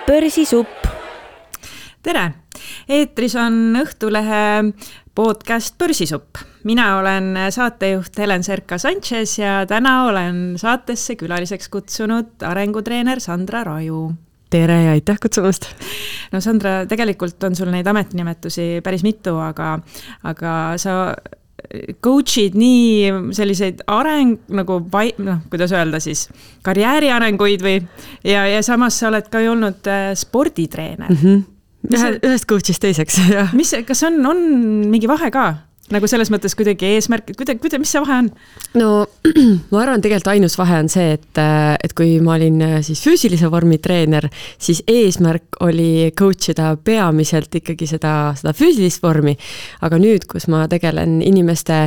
Börsisupp. Tere! Eetris on Õhtulehe podcast Börsisupp. Mina olen saatejuht Helen Serka-Sanchez ja täna olen saatesse külaliseks kutsunud arengutreener Sandra Raju. Tere ja aitäh kutsumast! No Sandra, tegelikult on sul neid ametinimetusi päris mitu, aga sa coachid nii selliseid kuidas öelda siis, karjääri arenguid ja samas sa oled ka olnud sporditreener. Ühest coachist teiseks, jah. Kas on mingi vahe ka? Nagu selles mõttes kuidagi eesmärk, mis see vahe on? No, ma arvan, tegelikult ainus vahe on see, et kui ma olin siis füüsilise vormi treener, siis eesmärk oli coachida peamiselt ikkagi seda füüsilist vormi. Aga nüüd, kus ma tegelen inimeste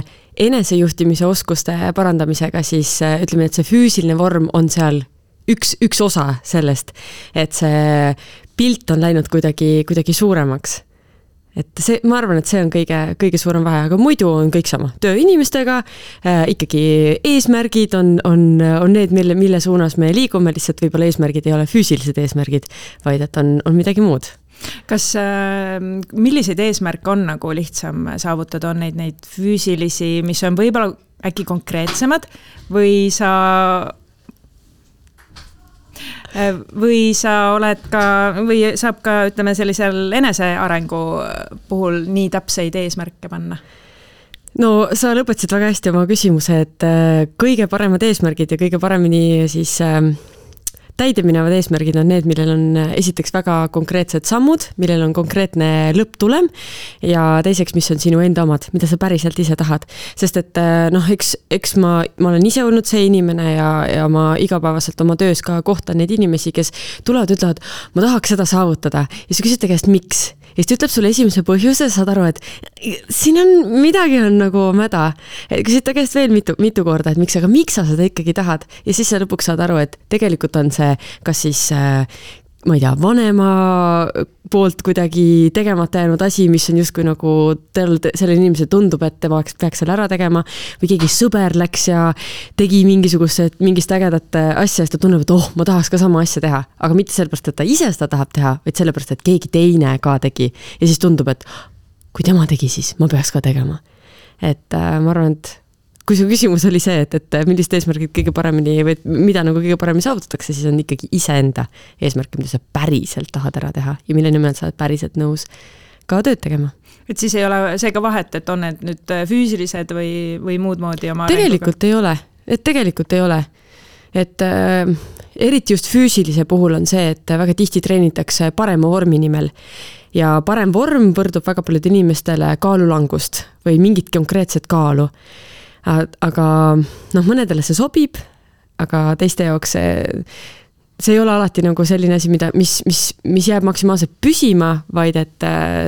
enesejuhtimise oskuste parandamisega, siis ütleme, et see füüsiline vorm on seal üks osa sellest, et see pilt on läinud kuidagi suuremaks. Et ma arvan, et see on kõige suurem vahe, aga muidu on kõik sama. Töö inimestega, ikkagi eesmärgid on need, mille suunas me liigume, lihtsalt võib-olla eesmärgid ei ole füüsilised eesmärgid, vaid et on midagi muud. Kas milliseid eesmärke on nagu lihtsam saavutada? On neid füüsilisi, mis on võib-olla äkki konkreetsemad või sa oled ka, või saab ka, ütleme, sellisel enesearengu puhul nii täpseid eesmärke panna? No, sa lõpetasid väga hästi oma küsimuse, et kõige paremad eesmärgid ja kõige paremini siis täideminevad eesmärgid on need, millel on esiteks väga konkreetsed sammud, millel on konkreetne lõpptulem ja teiseks, mis on sinu enda omad, mida sa päriselt ise tahad. Sest et eks ma olen ise olnud see inimene ja ma igapäevaselt oma töös ka kohtan neid inimesi, kes tulevad, ütlevad, ma tahaks seda saavutada. Ja sa küsid käest, miks? Ja siis ütleb sulle esimese põhjuse, saad aru, et siin midagi on nagu mäda. Küsid ta käest veel mitu korda, et miks sa seda ikkagi tahad? Ja siis sa lõpuks saad aru, et tegelikult on see kas siis, ma ei tea, vanema poolt kuidagi tegemata jäänud asi, mis on justkui nagu selle inimese tundub, et ta peaks selle ära tegema või keegi sõber läks ja tegi mingist ägedat asja ja ta tunneb, et ma tahaks ka sama asja teha, aga mitte sellepärast, et ta ise seda tahab teha, vaid sellepärast, et keegi teine ka tegi ja siis tundub, et kui tema tegi, siis ma peaks ka tegema. Et ma arvan, et kui su küsimus oli see, et millist eesmärgid kõige paremini või mida nagu kõige paremini saavutatakse, siis on ikkagi iseenda eesmärk, mida sa päriselt tahad ära teha ja mille nimel sa oled päriselt nõus ka tööd tegema. Et siis ei ole seega vahet, et on need nüüd füüsilised või muud moodi oma tegelikult ei ole. Et eriti just füüsilise puhul on see, et väga tihti treenitakse parema vormi nimel ja parem vorm võrdub väga paljude inimestele kaalulangust või mingit konkreetset kaalu. Aga mõnedele see sobib, aga teiste jaoks see ei ole alati nagu selline asi, mis jääb maksimaalselt püsima, vaid et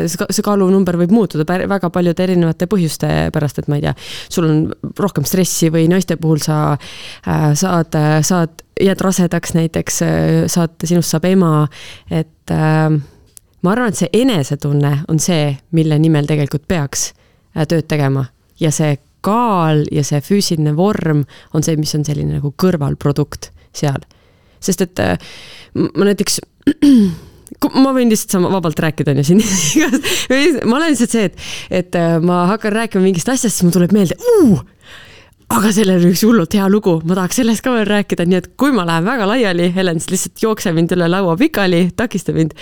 see kaalunumber võib muutuda väga paljude erinevate põhjuste pärast, et ma ei tea, sul on rohkem stressi või naiste puhul sa jääd rasedaks näiteks, sinust saab ema, et ma arvan, et see enesetunne on see, mille nimel tegelikult peaks tööd tegema ja see kaal ja see füüsiline vorm on see, mis on selline nagu kõrvalprodukt seal. Sest et ma näiteks, ma võin lihtsalt vabalt rääkida siin. Ma olen lihtsalt see, et ma hakkan rääkima mingist asjast, siis mul tuleb meelde, aga sellel on üks hullult hea lugu, ma tahaks sellest ka veel rääkida, nii et kui ma lähen väga laiali, Helen siis lihtsalt jookse mind üle laua pikali, takista mind.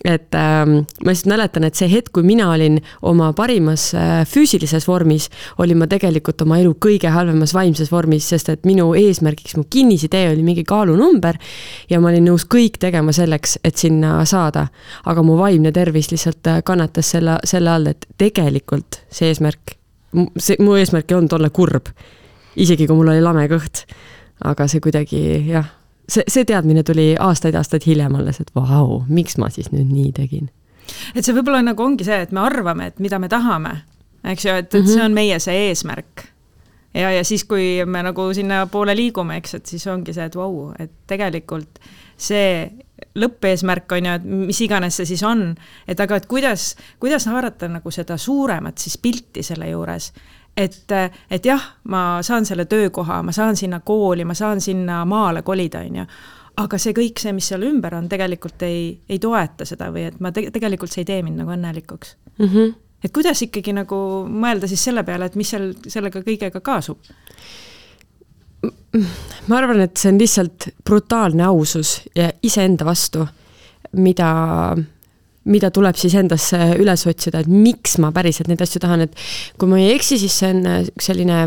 Et ma lihtsalt mäletan, et see hetk, kui mina olin oma parimas füüsilises vormis, olin ma tegelikult oma elu kõige halvemas vaimses vormis, sest et minu eesmärgiks, mu kinnisidee oli mingi kaalunumber ja ma olin nõus kõik tegema selleks, et sinna saada. Aga mu vaimne tervis lihtsalt kannatas selle all, et tegelikult mu eesmärk ei olnud olla kurb, isegi kui mul oli lame kõht. Aga see kuidagi, jah, see teadmine tuli aastaid hiljem alles, et vau, miks ma siis nüüd nii tegin? Et see võib-olla nagu ongi see, et me arvame, et mida me tahame, eks ju, et see on meie see eesmärk. Ja siis, kui me nagu sinna poole liigume, eks, et siis ongi see, et vau, et tegelikult see lõppeesmärk on ju, et mis iganes see siis on, et aga et kuidas haarata nagu seda suuremat siis pilti selle juures, et jah, ma saan selle töökoha, ma saan sinna kooli, ma saan sinna maale kolida, on ju. aga see kõik see, mis seal ümber on, tegelikult ei toeta seda või et ma tegelikult see ei tee mind nagu õnnelikuks. Et kuidas ikkagi nagu mõelda siis selle peale, et mis sellega kõigega kaasub? Ma arvan, et see on lihtsalt brutaalne ausus ja iseenda vastu, mida tuleb siis endasse üles otsida, et miks ma päriselt neid asju tahan, et kui ma ei eksi, siis see on selline,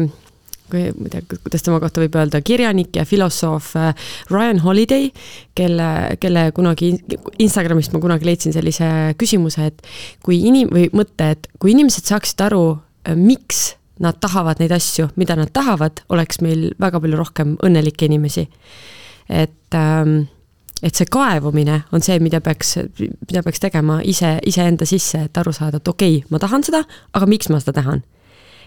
kuidas tema kohta võib öelda, kirjanik ja filosoof Ryan Holiday, kelle kunagi Instagramist ma kunagi leidsin sellise küsimuse, et kui inimesed saaksid aru, miks nad tahavad neid asju, mida nad tahavad, oleks meil väga palju rohkem õnnelikke inimesi. Et see kaevumine on see, mida peaks tegema iseenda sisse, et aru saada, et okei, ma tahan seda, aga miks ma seda tahan?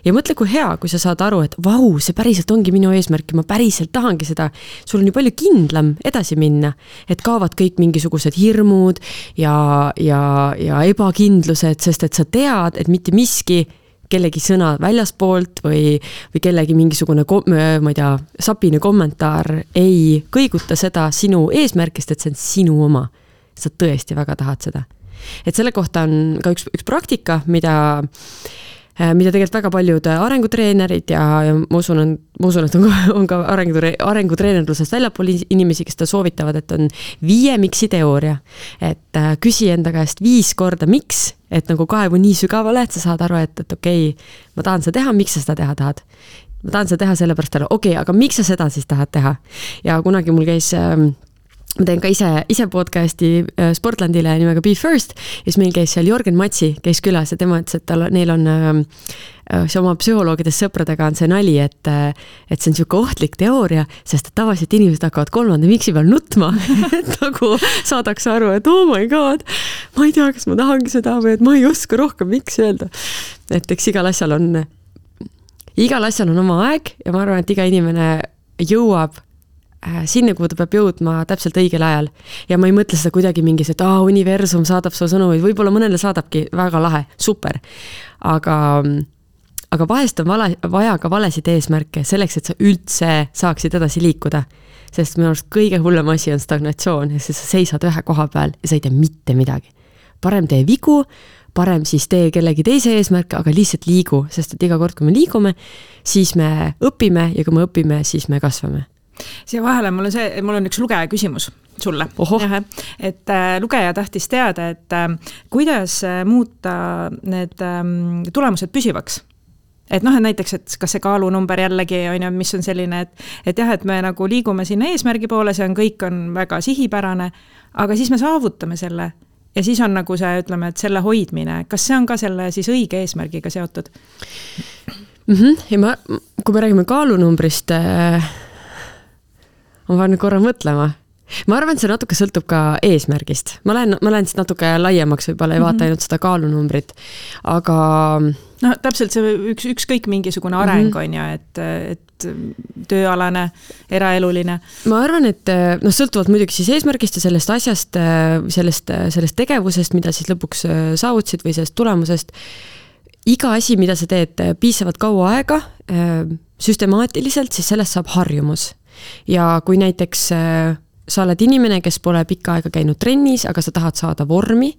Ja mõtle, kui hea, kui sa saad aru, et vau, see päriselt ongi minu eesmärk ja ma päriselt tahangi seda. Sul on ju palju kindlam edasi minna, et kaovad kõik mingisugused hirmud ja ebakindlused, sest et sa tead, et mitte miski kellegi sõna väljaspoolt või kellegi mingisugune, ma ei tea, sapine kommentaar ei kõiguta seda sinu eesmärkist, et see on sinu oma. Sa tõesti väga tahad seda. Et selle kohta on ka üks praktika, mida tegelikult väga paljud arengutreenerid ja ma usun, et on ka arengutreenerlusest väljapool inimesi, kes ta soovitavad, et on 5 miksi teooria. Et küsi enda käest 5 korda miks, et nagu kaevu nii sügavale, et sa saad aru, et okei, ma tahan seda teha, miks sa seda teha tahad? Ma tahan seda teha sellepärast, okei, aga miks sa seda siis tahad teha? Ja kunagi mul käis ma teen ka ise podcasti Sportlandile nimega Be First ja siis meil käis seal Jorgen Matsi käis külas ja tema ütles, et neil on see oma psühholoogidest sõpradega on see nali, et see on selline ohtlik teooria, sest et tavaliselt inimesed hakkavad 3. miksi peal nutma, et nagu saadaks aru, et oh my god, ma ei tea, kas ma tahangi seda või et ma ei oska rohkem miks öelda. Et eks igal asjal on oma aeg ja ma arvan, et iga inimene jõuab sinna, kuhu ta peab jõudma täpselt õigel ajal. Ja ma ei mõtle seda kuidagi mingis, et universum saadab su sõnu, võib-olla mõnele saadabki väga lahe, super. Aga vahest on vaja ka valesid eesmärke selleks, et sa üldse saaksid edasi liikuda. Sest minu arust kõige hullem asi on stagnatsioon, ja sa seisad ühe koha peal ja sa ei tee mitte midagi. Parem tee vigu, parem siis tee kellegi teise eesmärke, aga lihtsalt liigu, sest et iga kord, kui me liigume, siis me õpime ja kui me õpime, siis me kasvame. Siia vahele mul on üks lugeja küsimus sulle. Et lugeja tahtis teada, et kuidas muuta need tulemused püsivaks. Et näiteks, et kas see kaalunumber jällegi on, mis on selline, et jah, et me nagu liigume sinna eesmärgi poole, see on kõik on väga sihipärane, aga siis me saavutame selle ja siis on nagu see, ütleme, et selle hoidmine, kas see on ka selle siis õige eesmärgiga seotud? Ja kui me räägime kaalunumbrist, ma pean korra mõtlema. Ma arvan, et see natuke sõltub ka eesmärgist. Ma lähen siis natuke laiemaks, võib-olla ei vaata ainult seda kaalunumbrit, aga... täpselt see ükskõik mingisugune areng on ja, et tööalane, eraeluline. Ma arvan, et sõltuvalt muidugi siis eesmärgist ja sellest asjast, sellest tegevusest, mida siis lõpuks saavutsid või sellest tulemusest, iga asi, mida sa teed piisavalt kaua aega, süstemaatiliselt, siis sellest saab harjumus. Ja kui näiteks sa oled inimene, kes pole pikka aega käinud trennis, aga sa tahad saada vormi,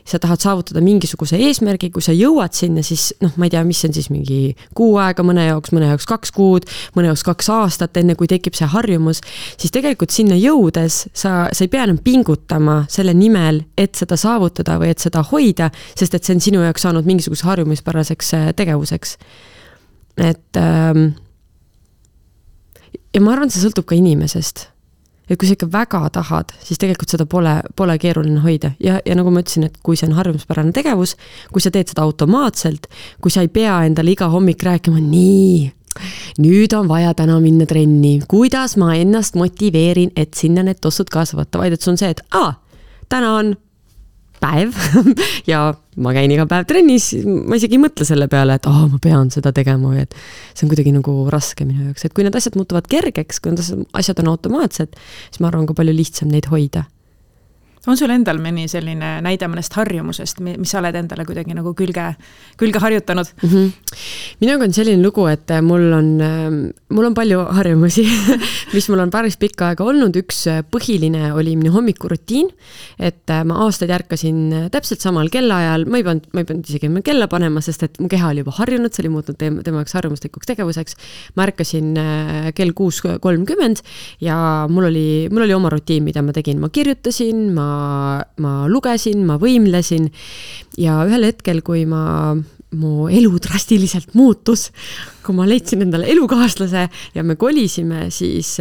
sa tahad saavutada mingisuguse eesmärgi, kui sa jõuad sinna, siis ma ei tea, mis on siis mingi 6 aega, mõne jaoks 2 kuud, mõne jaoks 2 aastat, enne kui tekib see harjumus, siis tegelikult sinna jõudes sa ei pea enam pingutama selle nimel, et seda saavutada või et seda hoida, sest et see on sinu jaoks saanud mingisuguse harjumispäraseks tegevuseks. Et ja ma arvan, see sõltub ka inimesest. Et kui sa ikka väga tahad, siis tegelikult seda pole keeruline hoida. Ja nagu ma ütlesin, et kui see on harjumuspärane tegevus, kui sa teed seda automaatselt, kui sa ei pea endale iga hommik rääkima, nüüd on vaja täna minna trenni, kuidas ma ennast motiveerin, et sinna need tossud kaasa võtta, vaid et see on see, et täna on päev ja ma käin iga päev trennis, ma isegi ei mõtle selle peale, et ma pean seda tegema või et see on kuidagi nagu raske minu jaoks. Et kui need asjad muutuvad kergeks, kui need asjad on automaatsed, siis ma arvan ka palju lihtsam neid hoida. On sul endal mõni selline näide mõnest harjumusest, mis sa oled endale kuidagi nagu külge harjutanud? Minuga on selline lugu, et mul on palju harjumusi, mis mul on päris pikka aega olnud. Üks põhiline oli minu hommikurutiin, et ma aastaid ärkasin täpselt samal kellaajal, ma ei pidanud isegi kella panema, sest et mu keha oli juba harjunud, see oli muutnud tema jaoks harjumuslikuks tegevuseks. Ma ärkasin kell 6:30 ja mul oli oma rutiin, mida ma tegin. Ma kirjutasin, ma lugesin, ma võimlesin ja ühel hetkel, kui mu elu drastiliselt muutus, kui ma leidsin endale elukaaslase ja me kolisime, siis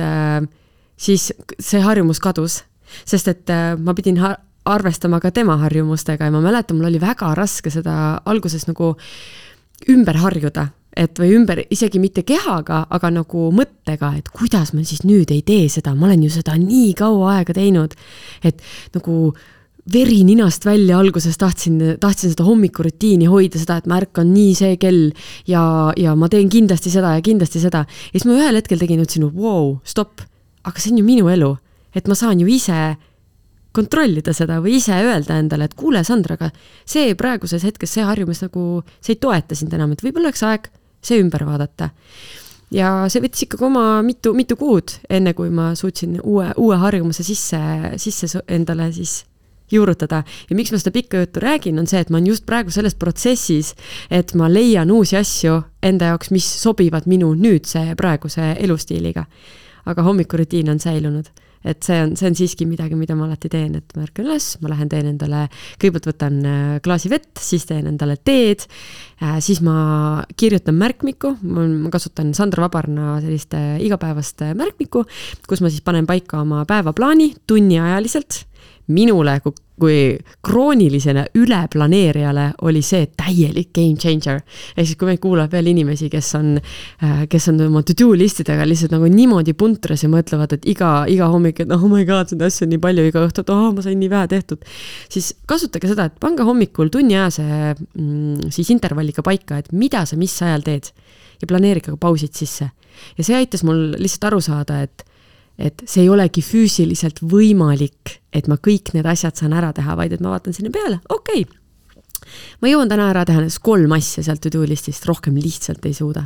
see harjumus kadus, sest et ma pidin arvestama ka tema harjumustega ja ma mäletan, mul oli väga raske seda alguses nagu ümber harjuda. Või ümber isegi mitte kehaga, aga nagu mõttega, et kuidas ma siis nüüd ei tee seda, ma olen ju seda nii kaua aega teinud, et nagu veri ninast välja alguses tahtsin seda hommikurutiini hoida, seda, et ma ärkan nii see kell ja ma teen kindlasti seda ja kindlasti seda. Ja siis ma ühel hetkel tegin, ütlesin, wow, stopp, aga see on ju minu elu, et ma saan ju ise kontrollida seda või ise öelda endale, et kuule, Sandra, aga see praeguses hetkes see harjumus nagu, see ei toeta sind enam, et võib-olla oleks aeg see ümber vaadata. Ja see võttis ikkagi oma mitu kuud, enne kui ma suutsin uue harjumuse sisse endale siis juurutada. Ja miks ma seda pikka juttu räägin, on see, et ma olen just praegu selles protsessis, et ma leian uusi asju enda jaoks, mis sobivad minu nüüdse praeguse elustiiliga. Aga hommikurutiin on säilunud. Et see on siiski midagi, mida ma alati teen, et ma ärkan üles, ma lähen teen endale, kõigepealt võtan klaasi vett, siis teen endale teed, siis ma kirjutan märkmiku, ma kasutan Sandra Vabarna sellist igapäevast märkmiku, kus ma siis panen paika oma päevaplaani tunniajaliselt. Minule kui kroonilisena üleplaneerijale oli see täielik game changer. Ja siis kui me kuulab veel inimesi, kes on oma to-do listidega lihtsalt nagu niimoodi puntras ja mõtlevad, et iga hommik, et oh my god, seda asja on nii palju, iga õhtu, et ma sain nii vähe tehtud. Siis kasutage seda, et pange hommikul tunniajase siis intervalliga paika, et mida sa mis ajal teed ja planeerige ka pausid sisse. Ja see aitas mul lihtsalt aru saada, et see ei olegi füüsiliselt võimalik, et ma kõik need asjad saan ära teha, vaid et ma vaatan sinna peale, okei. Ma jõuan täna ära teha 3 asja sealt to-do listist, rohkem lihtsalt ei suuda.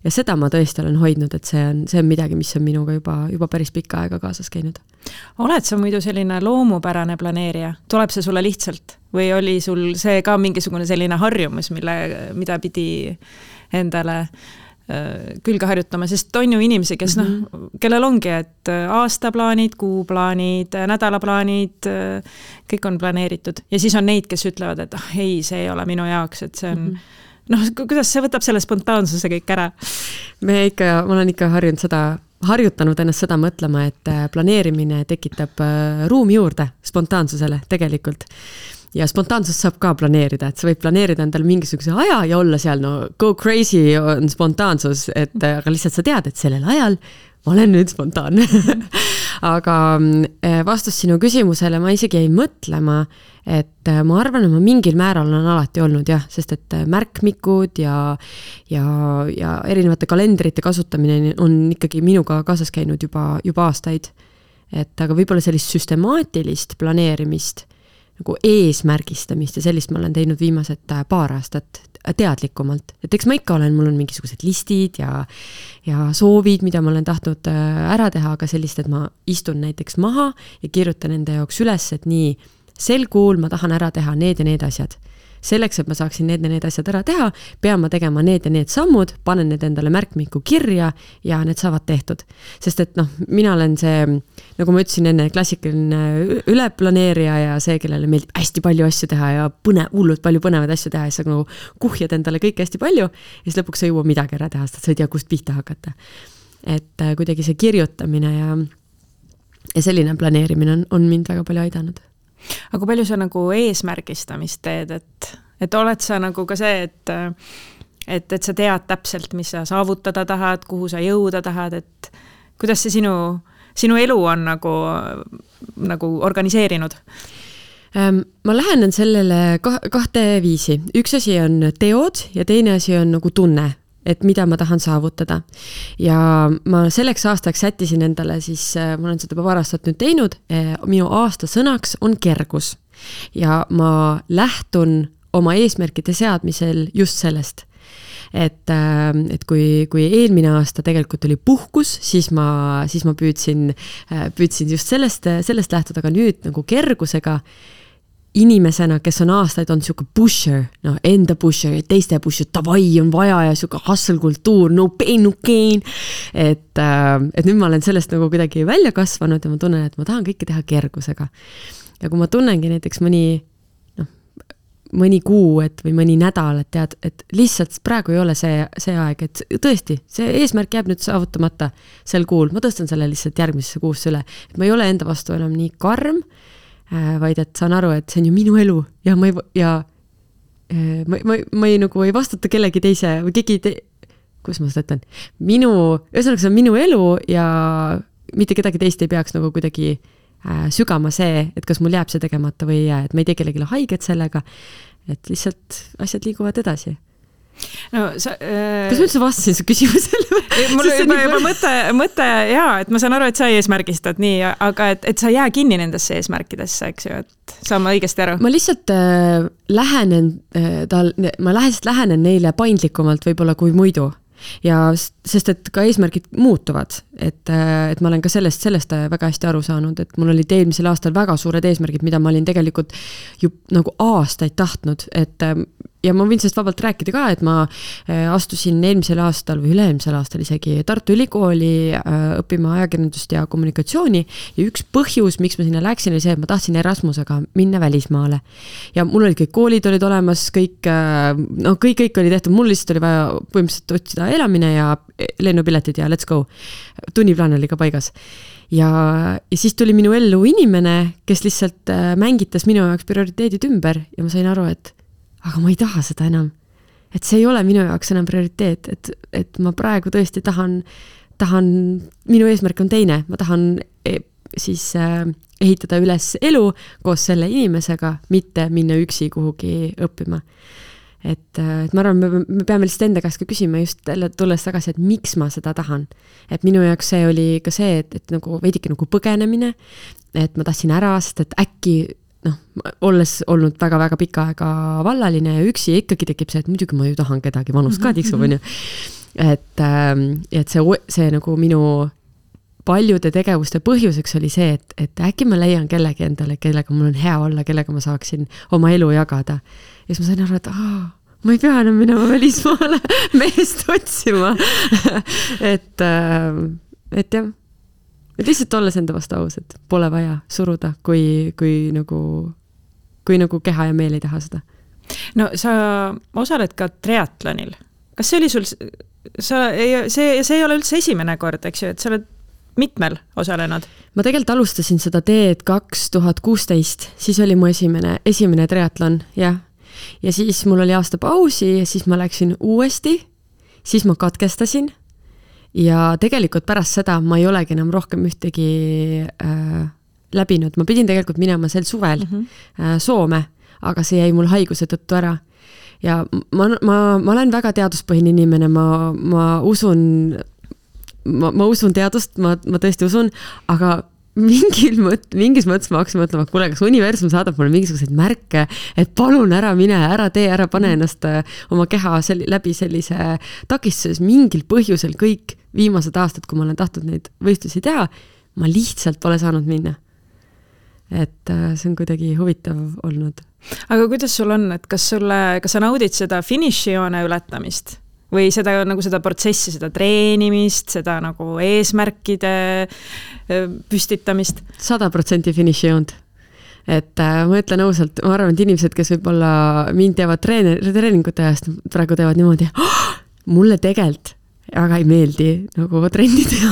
Ja seda ma tõesti olen hoidnud, et see on midagi, mis on minuga juba päris pikka aega kaasas käinud. Oled sa muidu selline loomupärane planeerija? Tuleb see sulle lihtsalt? Või oli sul see ka mingisugune selline harjumus, mida pidi endale külge harjutama, sest on ju inimesi, kes kellel ongi, et aastaplaanid, kuuplaanid, nädalaplaanid, kõik on planeeritud. Ja siis on neid, kes ütlevad, et ei, see ei ole minu jaoks, et see on kuidas see võtab selle spontaansuse kõik ära? Ma olen ikka harjutanud ennast seda mõtlema, et planeerimine tekitab ruumi juurde spontaansusele tegelikult. Ja spontaansus saab ka planeerida, et sa võid planeerida endale mingisuguse aja ja olla seal, go crazy on spontaansus, aga lihtsalt sa tead, et sellel ajal ma olen nüüd spontaanne. Aga vastus sinu küsimusele ma isegi ei mõtlema, et ma arvan, et ma mingil määral on alati olnud, sest et märkmikud ja erinevate kalendrite kasutamine on ikkagi minuga kaasas käinud juba aastaid. Aga võib-olla sellist süstemaatilist planeerimist nagu eesmärgistamist ja sellist ma olen teinud viimased paar aastat teadlikumalt. Et eks ma ikka mul on mingisugused listid ja soovid, mida ma olen tahtnud ära teha, aga sellist, et ma istun näiteks maha ja kirjutan enda jaoks üles, et nii sel kuul ma tahan ära teha need ja need asjad. Selleks, et ma saaksin need asjad ära teha, pean ma tegema need ja need sammud, panen need endale märkmiku kirja ja need saavad tehtud. Sest et mina olen see, nagu ma ütlesin enne, klassikaline üleplaneerija ja see, kellele meeldib hästi palju asju teha ja hullult palju põnevaid asju teha ja sa nagu kuhjad endale kõik hästi palju ja siis lõpuks sa jõua midagi ära teha, sest sa ei tea, kust pihta hakata. Et kuidagi see kirjutamine ja selline planeerimine on mind väga palju aidanud. Aga palju sa nagu eesmärgistamist teed, et oled sa nagu ka see, et sa tead täpselt, mis sa saavutada tahad, kuhu sa jõuda tahad, et kuidas see sinu elu on nagu organiseerinud? Ma lähenen sellele kahte viisi. Üks asi on teod ja teine asi on nagu tunne. et mida ma tahan saavutada. Ja ma selleks aastaks sättisin endale siis, ma olen seda juba paar aastat nüüd teinud, minu aasta sõnaks on kergus. Ja ma lähtun oma eesmärkide seadmisel just sellest. Et kui eelmine aasta tegelikult oli puhkus, siis ma püüdsin just sellest lähtuda, aga nüüd nagu kergusega inimesena, kes on aastaid on siuke pusher, enda pusher, teiste pusher, tavai on vaja ja siuke hustle kultuur, no pain, no gain. Et nüüd ma olen sellest nagu kuidagi välja kasvanud ja ma tunnen, et ma tahan kõike teha kergusega. Ja kui ma tunnengi näiteks mõni kuu või mõni nädal, et tead, et lihtsalt praegu ei ole see aeg, et tõesti, see eesmärk jääb nüüd saavutamata sel kuul, ma tõstan selle lihtsalt järgmisesse kuusse üle, et ma ei ole enda vastu enam nii karm, vaid et saan aru, et see on ju minu elu ja ma ei vastuta kellegi teise või kuidas ma seda ütlen, ühesõnaga see on minu elu ja mitte kedagi teist ei peaks nagu kuidagi sügama see, et kas mul jääb see tegemata või ei jää, et ma ei tee kellegile haiget sellega, et lihtsalt asjad liiguvad edasi. No, kas ma üldse vastasin su küsimusele? Mul juba mõte et ma saan aru, et sa eesmärgistad nii, aga et sa jää kinni nendesse eesmärkidesse, eks ju, et saan ma õigesti aru? Ma lihtsalt lähenen neile paindlikumalt võib-olla kui muidu. Ja sest, et ka eesmärgid muutuvad, et ma olen ka sellest väga hästi aru saanud, et mul olid eelmisel aastal väga suured eesmärgid, mida ma olin tegelikult ju nagu aastaid tahtnud, ja ma võin sellest vabalt rääkida ka, et ma astusin eelmisel aastal või üle-eelmisel aastal isegi Tartu Ülikooli õppima ajakirjandust ja kommunikatsiooni ja üks põhjus, miks ma sinna läksin, oli see, et ma tahtsin Erasmusega minna välismaale. Ja mul olid kõik koolid olid olemas, kõik oli tehtud, mul lihtsalt oli vaja põhimõtteliselt otsida elamine ja lennupiletid ja let's go. Tunniplaan oli ka paigas. Ja siis tuli minu ellu inimene, kes lihtsalt mängitas minu jaoks prioriteedid ümber ja ma sain aru, et aga ma ei taha seda enam. Et see ei ole minu jaoks enam prioriteet, et ma praegu tõesti tahan, minu eesmärk on teine, ma tahan siis ehitada üles elu koos selle inimesega, mitte minna üksi kuhugi õppima. Et ma arvan, me peame lihtsalt enda käest ka küsima just tulles tagasi, et miks ma seda tahan. Et minu jaoks see oli ka see, et nagu veidike nagu põgenemine, et ma tahtsin ära, sest et äkki olles olnud väga-väga pika aega vallaline ja üksi ikkagi tekib see, et muidugi ma ju tahan kedagi vanust ka tiksub, on ju. Et see nagu minu paljude tegevuste põhjuseks oli see, et äkki ma leian kellegi endale, kellega mul on hea olla, kellega ma saaksin oma elu jagada. Ja siis ma sain aru, et ma ei pea enam minema välismaale meest otsima. et jah. Et lihtsalt olles enda vastu aus, et pole vaja suruda, kui nagu keha ja meel ei taha seda. No sa osaled ka triatlonil. Kas see oli sul, see ei ole üldse esimene kord, eks ju, et sa oled mitmel osalenud? Ma tegelikult alustasin seda teed 2016, siis oli mu esimene triatlon, jah. Ja siis mul oli aasta pausi ja siis ma läksin uuesti, siis ma katkestasin. Ja tegelikult pärast seda ma ei olegi enam rohkem ühtegi läbinud. Ma pidin tegelikult minema sel suvel Soome, aga see jäi mul haiguse tõttu ära. Ja ma olen väga teaduspõhine inimene, ma usun teadust, ma tõesti usun, aga mingis mõttes ma hakkasin mõtlema, kuule, kas universum saadab mulle mingisuguseid märke, et palun ära mine, ära tee, ära pane ennast oma keha läbi sellise takistus mingil põhjusel kõik viimased aastad, kui ma olen tahtnud neid võistlusi teha, ma lihtsalt pole saanud minna. Et see on kuidagi huvitav olnud. Aga kuidas sul on, et kas sa naudid seda finišijoone ületamist? Või seda protsessi, seda treenimist, seda nagu eesmärkide püstitamist? 100% finišijoont. Et ma ütlen ausalt, ma arvan, et inimesed, kes võib-olla mind teevad treeningute ajast, praegu teevad niimoodi, mulle tegelikult aga ei meeldi nagu trenni teha.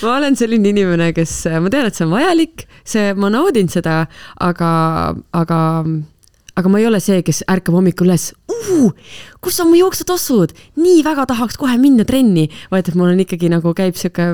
Ma olen selline inimene, ma tean, et see on vajalik, ma naudin seda, aga aga ma ei ole see, kes ärkab hommikul üles, kus on mu jooksutassud, nii väga tahaks kohe minna trenni, vaid et mul on ikkagi nagu käib siuke,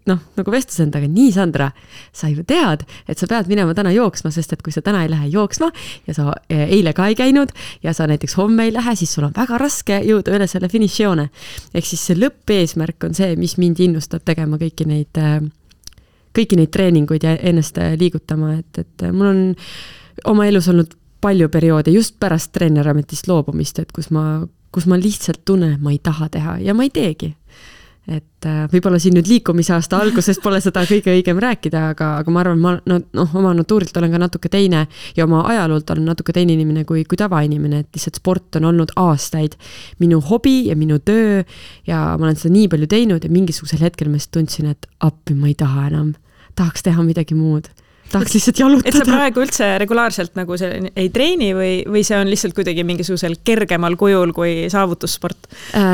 nagu vestlus endaga, nii Sandra, sa ju tead, et sa pead minema täna jooksma, sest et kui sa täna ei lähe jooksma ja sa eile ka ei käinud ja sa näiteks homme ei lähe, siis sul on väga raske jõuda üle selle finišijoone. Ehk siis see lõppeesmärk on see, mis mind innustab tegema kõiki neid treeninguid ja ennast liigutama, et mul on oma elus olnud palju perioode just pärast treenerametist loobumist, et kus ma lihtsalt tunnen, et ma ei taha teha ja ma ei teegi. Et võib-olla siin nüüd liikumisaasta alguses pole seda kõige õigem rääkida, aga ma arvan, oma natuurilt olen ka natuke teine ja oma ajaloolt olen natuke teine inimene kui tavainimene, et lihtsalt sport on olnud aastaid minu hobi ja minu töö ja ma olen seda nii palju teinud ja mingisugusel hetkel ma tundsin, et appi ma ei taha enam, tahaks teha midagi muud. Tahaks lihtsalt jalutada. Et sa praegu üldse regulaarselt nagu see ei treeni või see on lihtsalt kuidagi mingisugusel kergemal kujul kui saavutussport?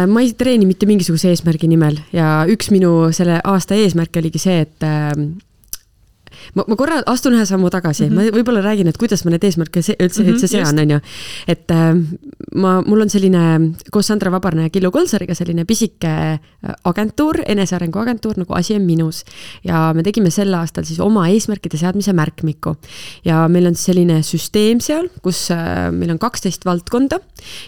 Ma ei treeni mitte mingisuguse eesmärgi nimel ja üks minu selle aasta eesmärk oligi see, et ma korra astun ühe sammu tagasi, ma võib-olla räägin, et kuidas ma need eesmärke üldse sean, on ju. Et mul on selline koos Sandra Vabarna ja Killu Kolsariga selline pisike agentuur, enesearengu agentuur, nagu Asi on minus. Ja me tegime sel aastal siis oma eesmärkide seadmise märkmiku. Ja meil on selline süsteem seal, kus meil on 12 valdkonda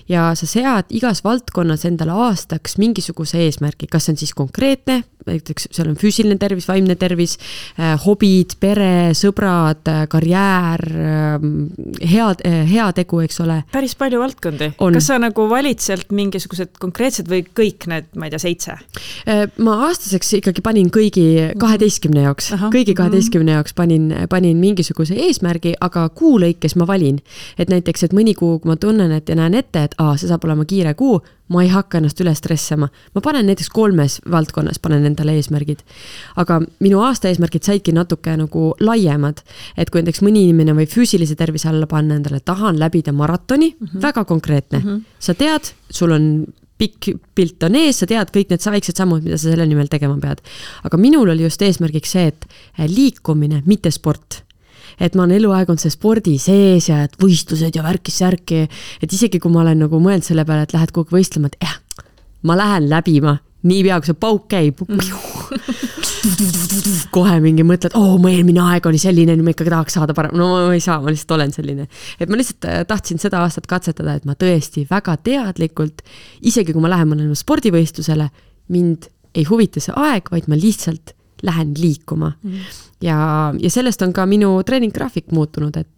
ja sa sead igas valdkonnas endale aastaks mingisuguse eesmärgi, kas see on siis konkreetne, näiteks seal on füüsiline tervis, vaimne tervis, hobid, pere, sõbrad, karjäär, hea tegu, eks ole. Päris palju valdkondi. Kas sa nagu valid sealt mingisugused konkreetsed või kõik need, ma ei tea, 7? Ma aastaseks ikkagi panin kõigi 12 jaoks. Kõigi 12 jaoks panin mingisuguse eesmärgi, aga kuu lõikes ma valin. Et näiteks, et mõni kuu, kui ma tunnen, et ja näen ette, et see saab olema kiire kuu, ma ei hakka ennast üle stressama. Ma panen näiteks 3 valdkonnas, panen endale eesmärgid. Aga minu aasta eesmärgid saidki natuke nagu laiemad. Et kui näiteks mõni inimene või füüsilise tervise alla panna endale, tahan läbida maratoni, väga konkreetne. Sa tead, sul on pikk pilt on ees, sa tead kõik need väiksed sammud, mida sa selle nimel tegema pead. Aga minul oli just eesmärgiks see, et liikumine, mitte sport. Et ma olen eluaeg on see spordi sees ja et võistlused ja värki, et isegi kui ma olen nagu mõelnud selle peale, et lähed kogu võistlema, et ma lähen läbima, nii pea, kui see pauk käib, kohe mingi mõtled, mu eelmine aeg oli selline, ma ikkagi tahaks saada parem, no ma ei saa, ma lihtsalt olen selline. Et ma lihtsalt tahtsin seda aastat katsetada, et ma tõesti väga teadlikult, isegi kui ma lähen mõnele spordivõistlusele, mind ei huvita see aeg, vaid ma lihtsalt lähen liikuma. Ja sellest on ka minu treeninggraafik muutunud, et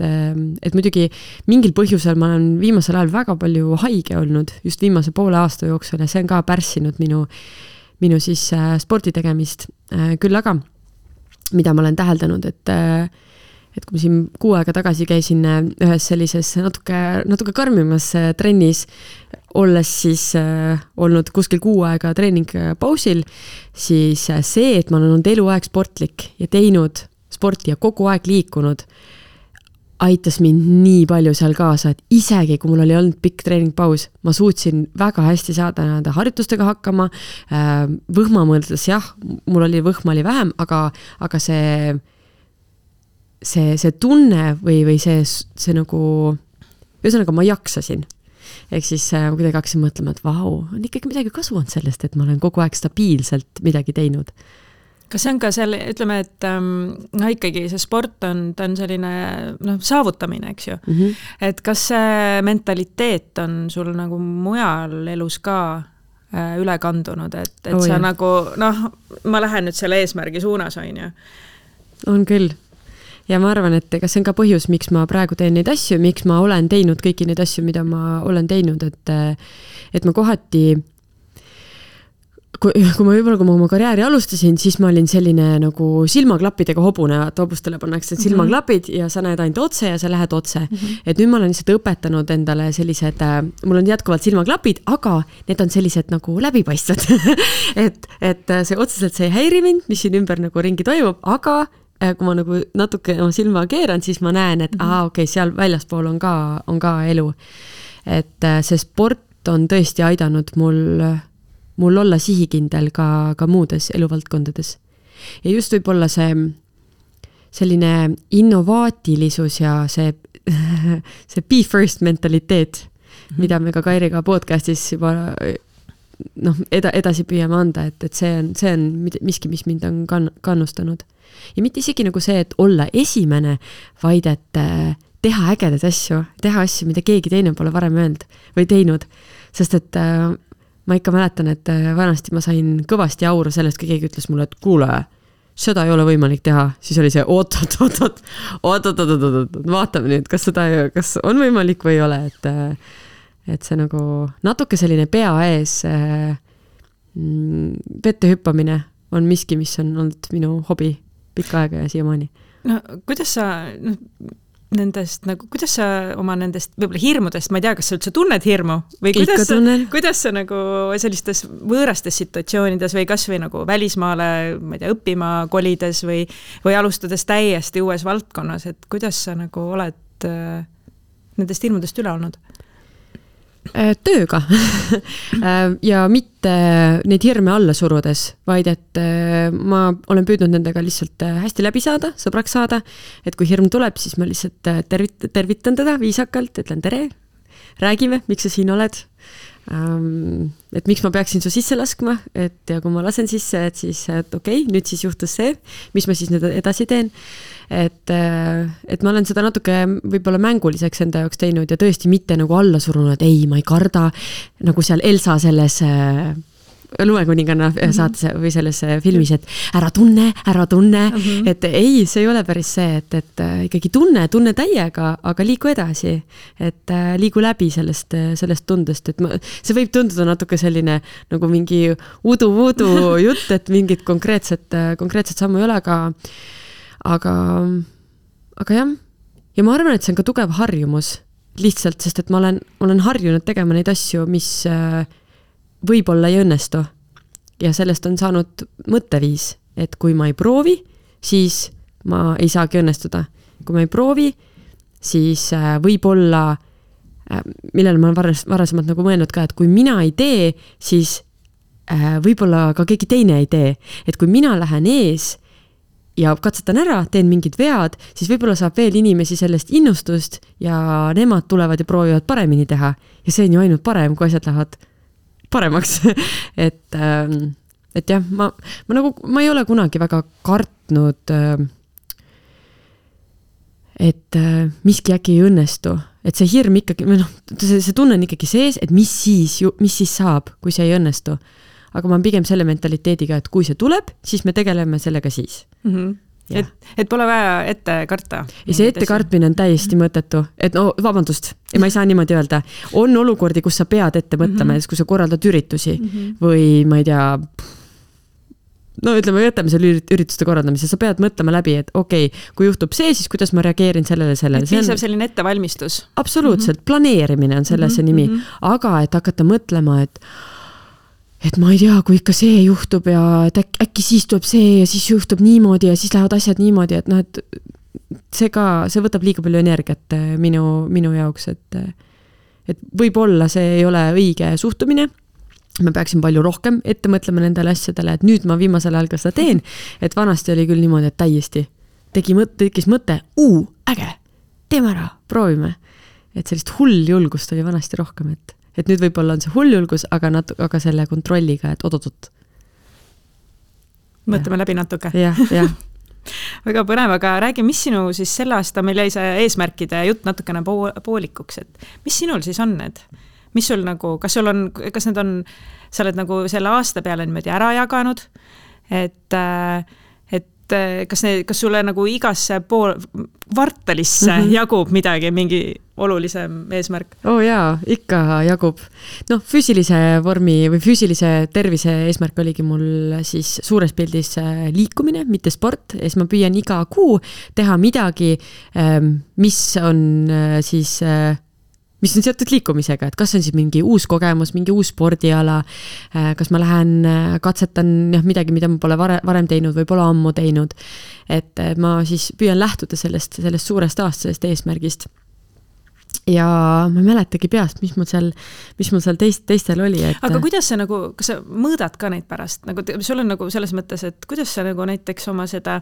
muidugi mingil põhjusel ma olen viimasel ajal väga palju haige olnud, just viimase poole aasta jooksul ja see on ka pärssinud minu siis spordi tegemist. Küll aga, mida ma olen täheldanud, et kui ma siin 6 aega tagasi käisin ühes sellises natuke karmimas trennis, olles siis olnud kuskil 6 aega treeningpausil, siis see, et ma olen olnud eluaeg sportlik ja teinud sporti ja kogu aeg liikunud, aitas mind nii palju seal kaasa, et isegi kui mul oli olnud pikk treeningpaus, ma suutsin väga hästi saada nende harjutustega hakkama, võhma mõeldes, jah, mul oli võhma oli vähem, aga see tunne või see nagu, ühesõnaga ma jaksasin. Ehk siis kuidagi hakkasin mõtlema, et on ikkagi midagi kasu on sellest, et ma olen kogu aeg stabiilselt midagi teinud. Kas see on ka selle, ütleme, et ikkagi see sport on selline saavutamine, eks ju. Et kas see mentaliteet on sul nagu mujal elus ka üle kandunud, et sa nagu, ma lähen nüüd selle eesmärgi suunas, on ju? On küll. Ja ma arvan, et kas see on ka põhjus, miks ma praegu teen neid asju, miks ma olen teinud kõiki neid asju, mida ma olen teinud, et ma kohati, kui ma oma karjääri alustasin, siis ma olin selline nagu silmaklappidega hobune, et hobustele pannakse silmaklapid ja sa näed ainult otse ja sa lähed otse. Et nüüd ma olen lihtsalt õpetanud endale sellised, mul on jätkuvalt silmaklapid, aga need on sellised nagu läbipaistvad. et see otseselt see ei häiri mind, mis siin ümber nagu ringi toimub, aga kui ma nagu natuke oma silma keeran, siis ma näen, et seal väljaspool on ka elu. Et see sport on tõesti aidanud mul olla sihikindel ka muudes eluvaldkondades. Ja just võib olla see selline innovaatilisus ja see see be first mentaliteet, mida me ka Kairiga podcastis juba edasi püüame anda, et see on miski, mis mind on kannustanud. Ja mitte isegi nagu see, et olla esimene, vaid et teha ägedaid asju, teha asju, mida keegi teine pole varem öelnud või teinud. Sest et ma ikka mäletan, et vanasti ma sain kõvasti auru sellest, kui keegi ütles mulle, et kuule, seda ei ole võimalik teha. Siis oli see oot, vaatame nüüd, kas on võimalik või ei ole, et see nagu natuke selline pea ees vette hüppamine on miski, mis on olnud minu hobi pikka aega ja siiamaani. No kuidas sa kuidas sa oma nendest võib-olla hirmudest, ma ei tea, kas sa üldse tunned hirmu või kuidas sa nagu sellistes võõrastes situatsioonides või kas või nagu välismaale, ma ei tea, õppima kolides või alustades täiesti uues valdkonnas, et kuidas sa nagu oled nendest hirmudest üle olnud? Tööga ja mitte neid hirme alla surudes, vaid et ma olen püüdnud nendega lihtsalt hästi läbi saada, sõbraks saada, et kui hirm tuleb, siis ma lihtsalt tervitan teda viisakalt, ütlen tere, räägime, miks sa siin oled, et miks ma peaksin su sisse laskma, et ja kui ma lasen sisse, et siis okei, nüüd siis juhtus see, mis ma siis nüüd edasi teen. Et ma olen seda natuke võib-olla mänguliseks enda jaoks teinud ja tõesti mitte nagu alla surunud, et ei, ma ei karda, nagu seal Elsa selles Lumekuninganna saates või selles filmis, et ära tunne, et ei, see ei ole päris see, et ikkagi tunne täiega, aga liigu edasi, et liigu läbi sellest tundest, et see võib tunduda natuke selline nagu mingi udu jutt, et mingit konkreetset sammu ei ole, aga jah, ja ma arvan, et see on ka tugev harjumus lihtsalt, sest et ma olen harjunud tegema neid asju, mis võib-olla ei õnnestu ja sellest on saanud mõtteviis, et kui ma ei proovi, siis ma ei saagi õnnestuda. Kui ma ei proovi, siis võib-olla, millele ma olen varasemalt nagu mõelnud ka, et kui mina ei tee, siis võib-olla ka keegi teine ei tee. Et kui mina lähen ees ja katsetan ära, teen mingid vead, siis võib-olla saab veel inimesi sellest innustust ja nemad tulevad ja proovivad paremini teha. Ja see on ju ainult parem, kui asjad lähevad paremaks. et jah, ma ei ole kunagi väga kartnud, et miski äkki ei õnnestu. Et see hirm ikkagi, see tunne on ikkagi sees, et mis siis saab, kui see ei õnnestu. Aga ma olen pigem selle mentaliteediga, et kui see tuleb, siis me tegeleme sellega siis. Et pole vaja ette karta. Ja see ette kartmine on täiesti mõttetu. Et vabandust, ma ei saa niimoodi öelda. On olukordi, kus sa pead ette mõtlema, kui sa korraldad üritusi või ma ei tea, ütleme, võtame selle ürituste korraldamise, sa pead mõtlema läbi, et okei, kui juhtub see, siis kuidas ma reageerin sellele. Et piisab selline ettevalmistus. Absoluutselt, planeerimine on selle see nimi. Aga et hakata mõtlema, et ma ei tea, kui ikka see juhtub ja et äkki siis tuleb see ja siis juhtub niimoodi ja siis lähevad asjad niimoodi, et see võtab liiga palju energiat minu jaoks, et võib-olla see ei ole õige suhtumine. Ma peaksin palju rohkem ette mõtlema nendele asjadele, et nüüd ma viimasel ajal ka seda teen, et vanasti oli küll niimoodi, et täiesti tekkis mõte, äge, teeme ära, proovime. Et sellist hull julgust oli vanasti rohkem, et nüüd võib-olla on see hull julgus, aga selle kontrolliga, et odotot. Mõtleme läbi natuke. Jah. Väga põnev, aga räägi, mis sinu siis selle aasta, meil jäi see eesmärkide jutt natukene poolikuks, et mis sinul siis on need? Mis sul nagu, kas need on, sa oled nagu selle aasta peale niimoodi ära jaganud, et kas sulle nagu igasse kvartalisse jagub midagi, mingi olulisem eesmärk? Jaa, ikka jagub. Füüsilise vormi või füüsilise tervise eesmärk oligi mul siis suures pildis liikumine, mitte sport. Ja ma püüan iga kuu teha midagi, mis on seotud liikumisega, et kas on siis mingi uus kogemus, mingi uus spordiala, kas ma lähen katsetan midagi, mida ma pole varem teinud või pole ammu teinud, et ma siis püüan lähtuda sellest suurest aastasest eesmärgist. ja ma ei mäletagi peast, mis mul seal teistel oli. Aga kuidas sa nagu, kas sa mõõdad ka neid pärast? Nagu, sul on nagu selles mõttes, et kuidas sa nagu näiteks oma seda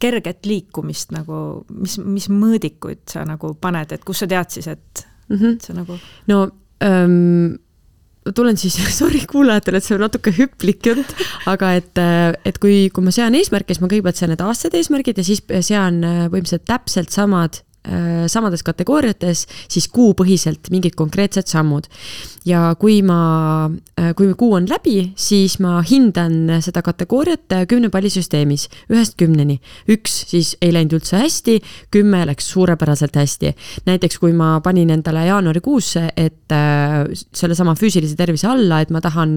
kerget liikumist nagu, mis mõõdikuid sa nagu paned, et kus sa tead siis, et sa nagu... No, tulen siis, sorry kuulajatele, et see on natuke hüplik jutt, aga et kui ma sean eesmärke, siis ma kõigepealt sean need aastad eesmärgid ja siis sean võimsalt täpselt samades kategooriates, siis kuupõhiselt mingid konkreetsed sammud. Ja kui kuu on läbi, siis ma hindan seda kategooriat 10 pallisüsteemis, 1-10. 1 siis ei läinud üldse hästi, 10 läks suurepäraselt hästi. Näiteks kui ma panin endale jaanuarikuusse, et selle sama füüsilise tervise alla, et ma tahan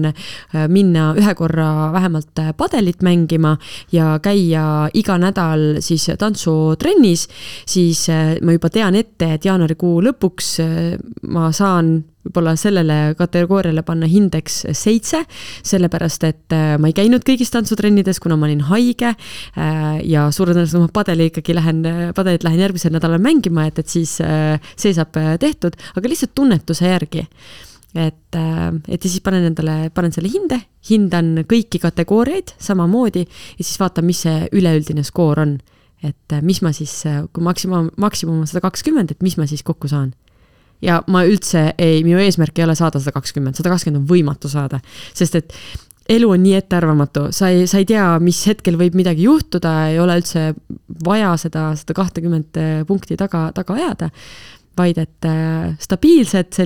minna ühe korra vähemalt padelit mängima ja käia iga nädal siis tantsutrennis, siis ma juba tean ette, et jaanuarikuu lõpuks ma saan võib-olla sellele kategooriale panna hindeks 7, sellepärast, et ma ei käinud kõigis tantsutrennides, kuna ma olin haige ja suure tõenäoliselt ma padelit lähen järgmisel nädalal mängima, et siis see saab tehtud, aga lihtsalt tunnetuse järgi. Et siis panen selle hindan kõiki kategooriaid samamoodi ja siis vaatan, mis see üleüldine skoor on. Et mis ma siis, kui maksimum on 120, et mis ma siis kokku saan. Ja ma üldse minu eesmärk ei ole saada 120 on võimatu saada, sest et elu on nii ettearvamatu, sa ei tea, mis hetkel võib midagi juhtuda, ei ole üldse vaja seda 20 punkti taga ajada, vaid et stabiilset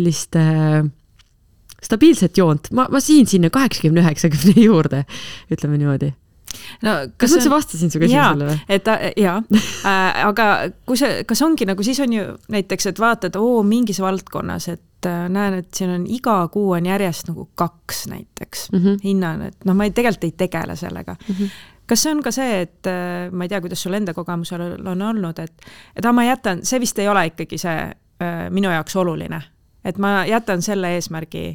joont, ma siin sinna 80-90 juurde, ütleme niimoodi. No, kas ma vastasin su küsimusele või? Aga kas ongi nagu, siis on ju näiteks, et vaatad, mingis valdkonnas, et näen, et siin on iga kuu on järjest nagu 2 näiteks hinnan, et ma tegelikult ei tegele sellega. Kas see on ka see, et ma ei tea, kuidas sul enda kogemusel on olnud, et ma jätan, see vist ei ole ikkagi see minu jaoks oluline, et ma jätan selle eesmärgi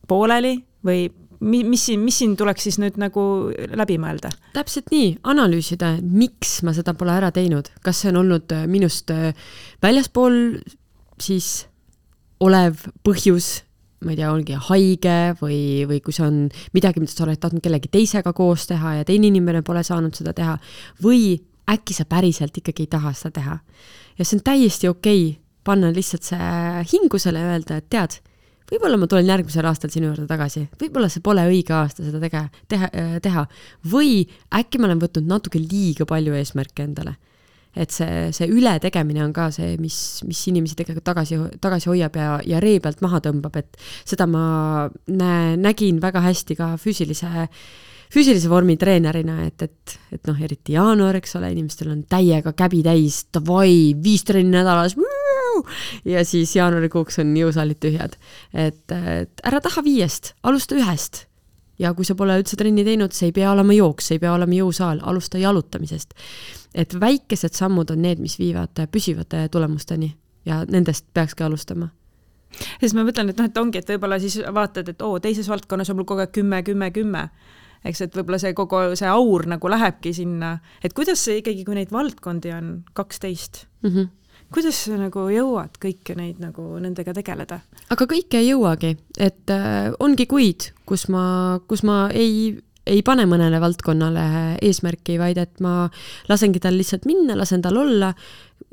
pooleli või mis siin tuleks siis nüüd nagu läbi mõelda? Täpselt nii, analüüsida, miks ma seda pole ära teinud. Kas see on olnud minust väljaspool siis olev põhjus, ma ei tea, ongi haige või kui see on midagi, mida sa oled tahtnud kellegi teisega koos teha ja teine inimene pole saanud seda teha või äkki sa päriselt ikkagi ei taha seda teha. Ja see on täiesti okei panna lihtsalt see hingusele ja öelda, et tead, võib-olla ma tulen järgmisel aastal sinu juurde tagasi. Võib-olla see pole õige aasta seda teha. Või äkki ma olen võtnud natuke liiga palju eesmärke endale. Et see ületegemine on ka see, mis inimesi tegelikult tagasi hoiab ja ree pealt maha tõmbab. Et seda ma nägin väga hästi ka füüsilise vormi treenerina, et eriti jaanuar, eks ole, inimestel on täiega käbi täis, 5 trenni nädalas, ja siis jaanuarikuuks on jõusaalid tühjad. Et ära taha 5, alusta 1. Ja kui sa pole üldse trenni teinud, see ei pea olema jooks, see ei pea olema jõusaal, alusta jalutamisest. Et väikesed sammud on need, mis viivad püsivate tulemusteni ja nendest peakski alustama. Siis ma mõtlen, et ongi, et võib-olla siis vaatad, et teises valdkonnas on mul kogu aeg 10. Eks, et võib-olla see kogu see aur nagu lähebki sinna. Et kuidas see ikkagi, kui neid valdkondi on 12? Kuidas sa nagu jõuad kõike neid nagu nendega tegeleda? Aga kõike ei jõuagi, et ongi kuid, kus ma ei pane mõnele valdkonnale eesmärki, vaid et ma lasengi tal lihtsalt minna, lasen tal olla.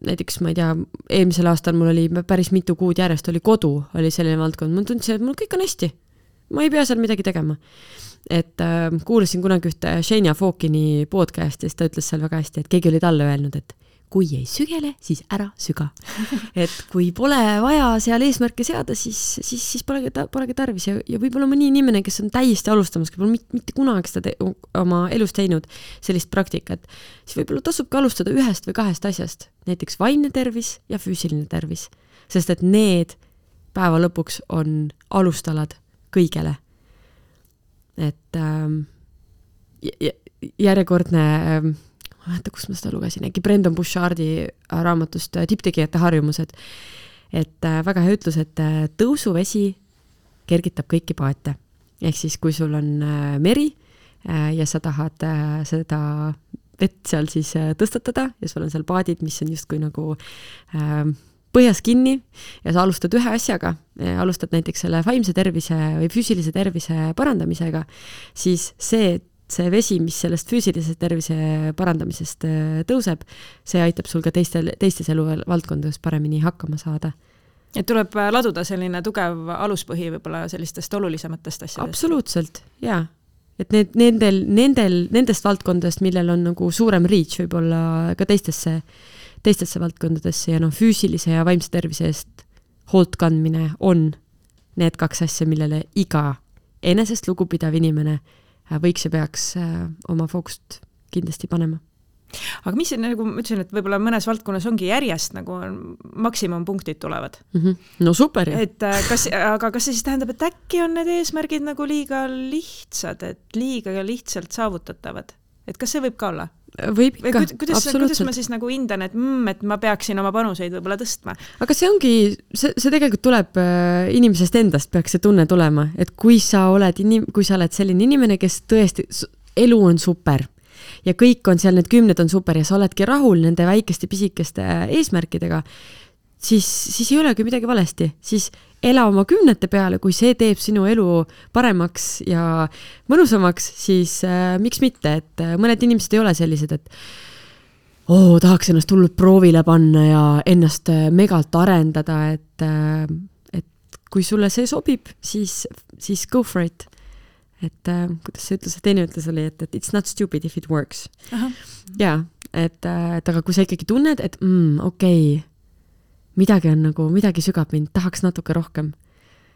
Näiteks, ma ei tea, eelmisel aastal mul oli päris mitu kuud järjest oli kodu, oli selline valdkond. Ma tundsin, et mul kõik on hästi. Ma ei pea seal midagi tegema. Et kuulasin kunagi ühte Shania Fawkini podcastist, ta ütles seal väga hästi, et keegi oli talle öelnud, et kui ei sügele, siis ära süga. Et kui pole vaja seal eesmärke seada, siis polegi tarvis. Ja võib-olla mõni inimene, kes on täiesti alustamas, kes pole mitte kunagi seda oma elus teinud sellist praktikat, siis võib-olla tasubki alustada 1 või 2 asjast. Näiteks vaimne tervis ja füüsiline tervis. Sest et need päeva lõpuks on alustalad kõigele. Et järjekordne... ma mäeta, kus ma seda lugesin, äkki Brendan Bouchardi raamatust Tipptegijate harjumused, et väga hea ütlus, et tõusuvesi kergitab kõiki paate. Ehk siis, kui sul on meri ja sa tahad seda vett seal siis tõstatada ja sul on seal paadid, mis on justkui nagu põhjas kinni ja sa alustad ühe asjaga, alustad näiteks selle vaimse tervise või füüsilise tervise parandamisega, siis see vesi, mis sellest füüsilise tervise parandamisest tõuseb, see aitab sul ka teistes eluvaldkondades paremini hakkama saada. Et tuleb laduda selline tugev aluspõhi võib-olla sellistest olulisematest asjadest. Absoluutselt, jaa. Et nendest valdkondadest, millel on nagu suurem reach võib-olla ka teistesse valdkondadesse ja füüsilise ja vaimse tervise eest hoolt kandmine on need 2 asja, millele iga enesest lugupidav inimene võiks ja peaks oma fookust kindlasti panema. Aga mis nagu ma ütlesin, et võib-olla mõnes valdkonnas ongi järjest nagu maksimumpunktid tulevad. No super. Aga kas see siis tähendab, et äkki on need eesmärgid nagu liiga lihtsad, et liiga lihtsalt saavutatavad? Et kas see võib ka olla? Võib ikka, kuidas ma siis nagu hindan, et ma peaksin oma panuseid võib-olla tõstma? Aga see ongi, see tegelikult tuleb inimesest endast, peaks see tunne tulema, et kui sa oled selline inimene, kes tõesti, elu on super ja kõik on seal, need 10 on super ja sa oledki rahul nende väikeste pisikeste eesmärkidega, siis ei olegi midagi valesti, siis ela oma 10 peale, kui see teeb sinu elu paremaks ja mõnusamaks, siis miks mitte, et mõned inimesed ei ole sellised, et tahaks ennast hullult proovile panna ja ennast megalt arendada, et kui sulle see sobib, siis go for it. Et kuidas see ütles, teine ütles oli, et it's not stupid if it works. Jaa, et aga kui sa ikkagi tunned, et okei, midagi on nagu, midagi sügab mind, tahaks natuke rohkem,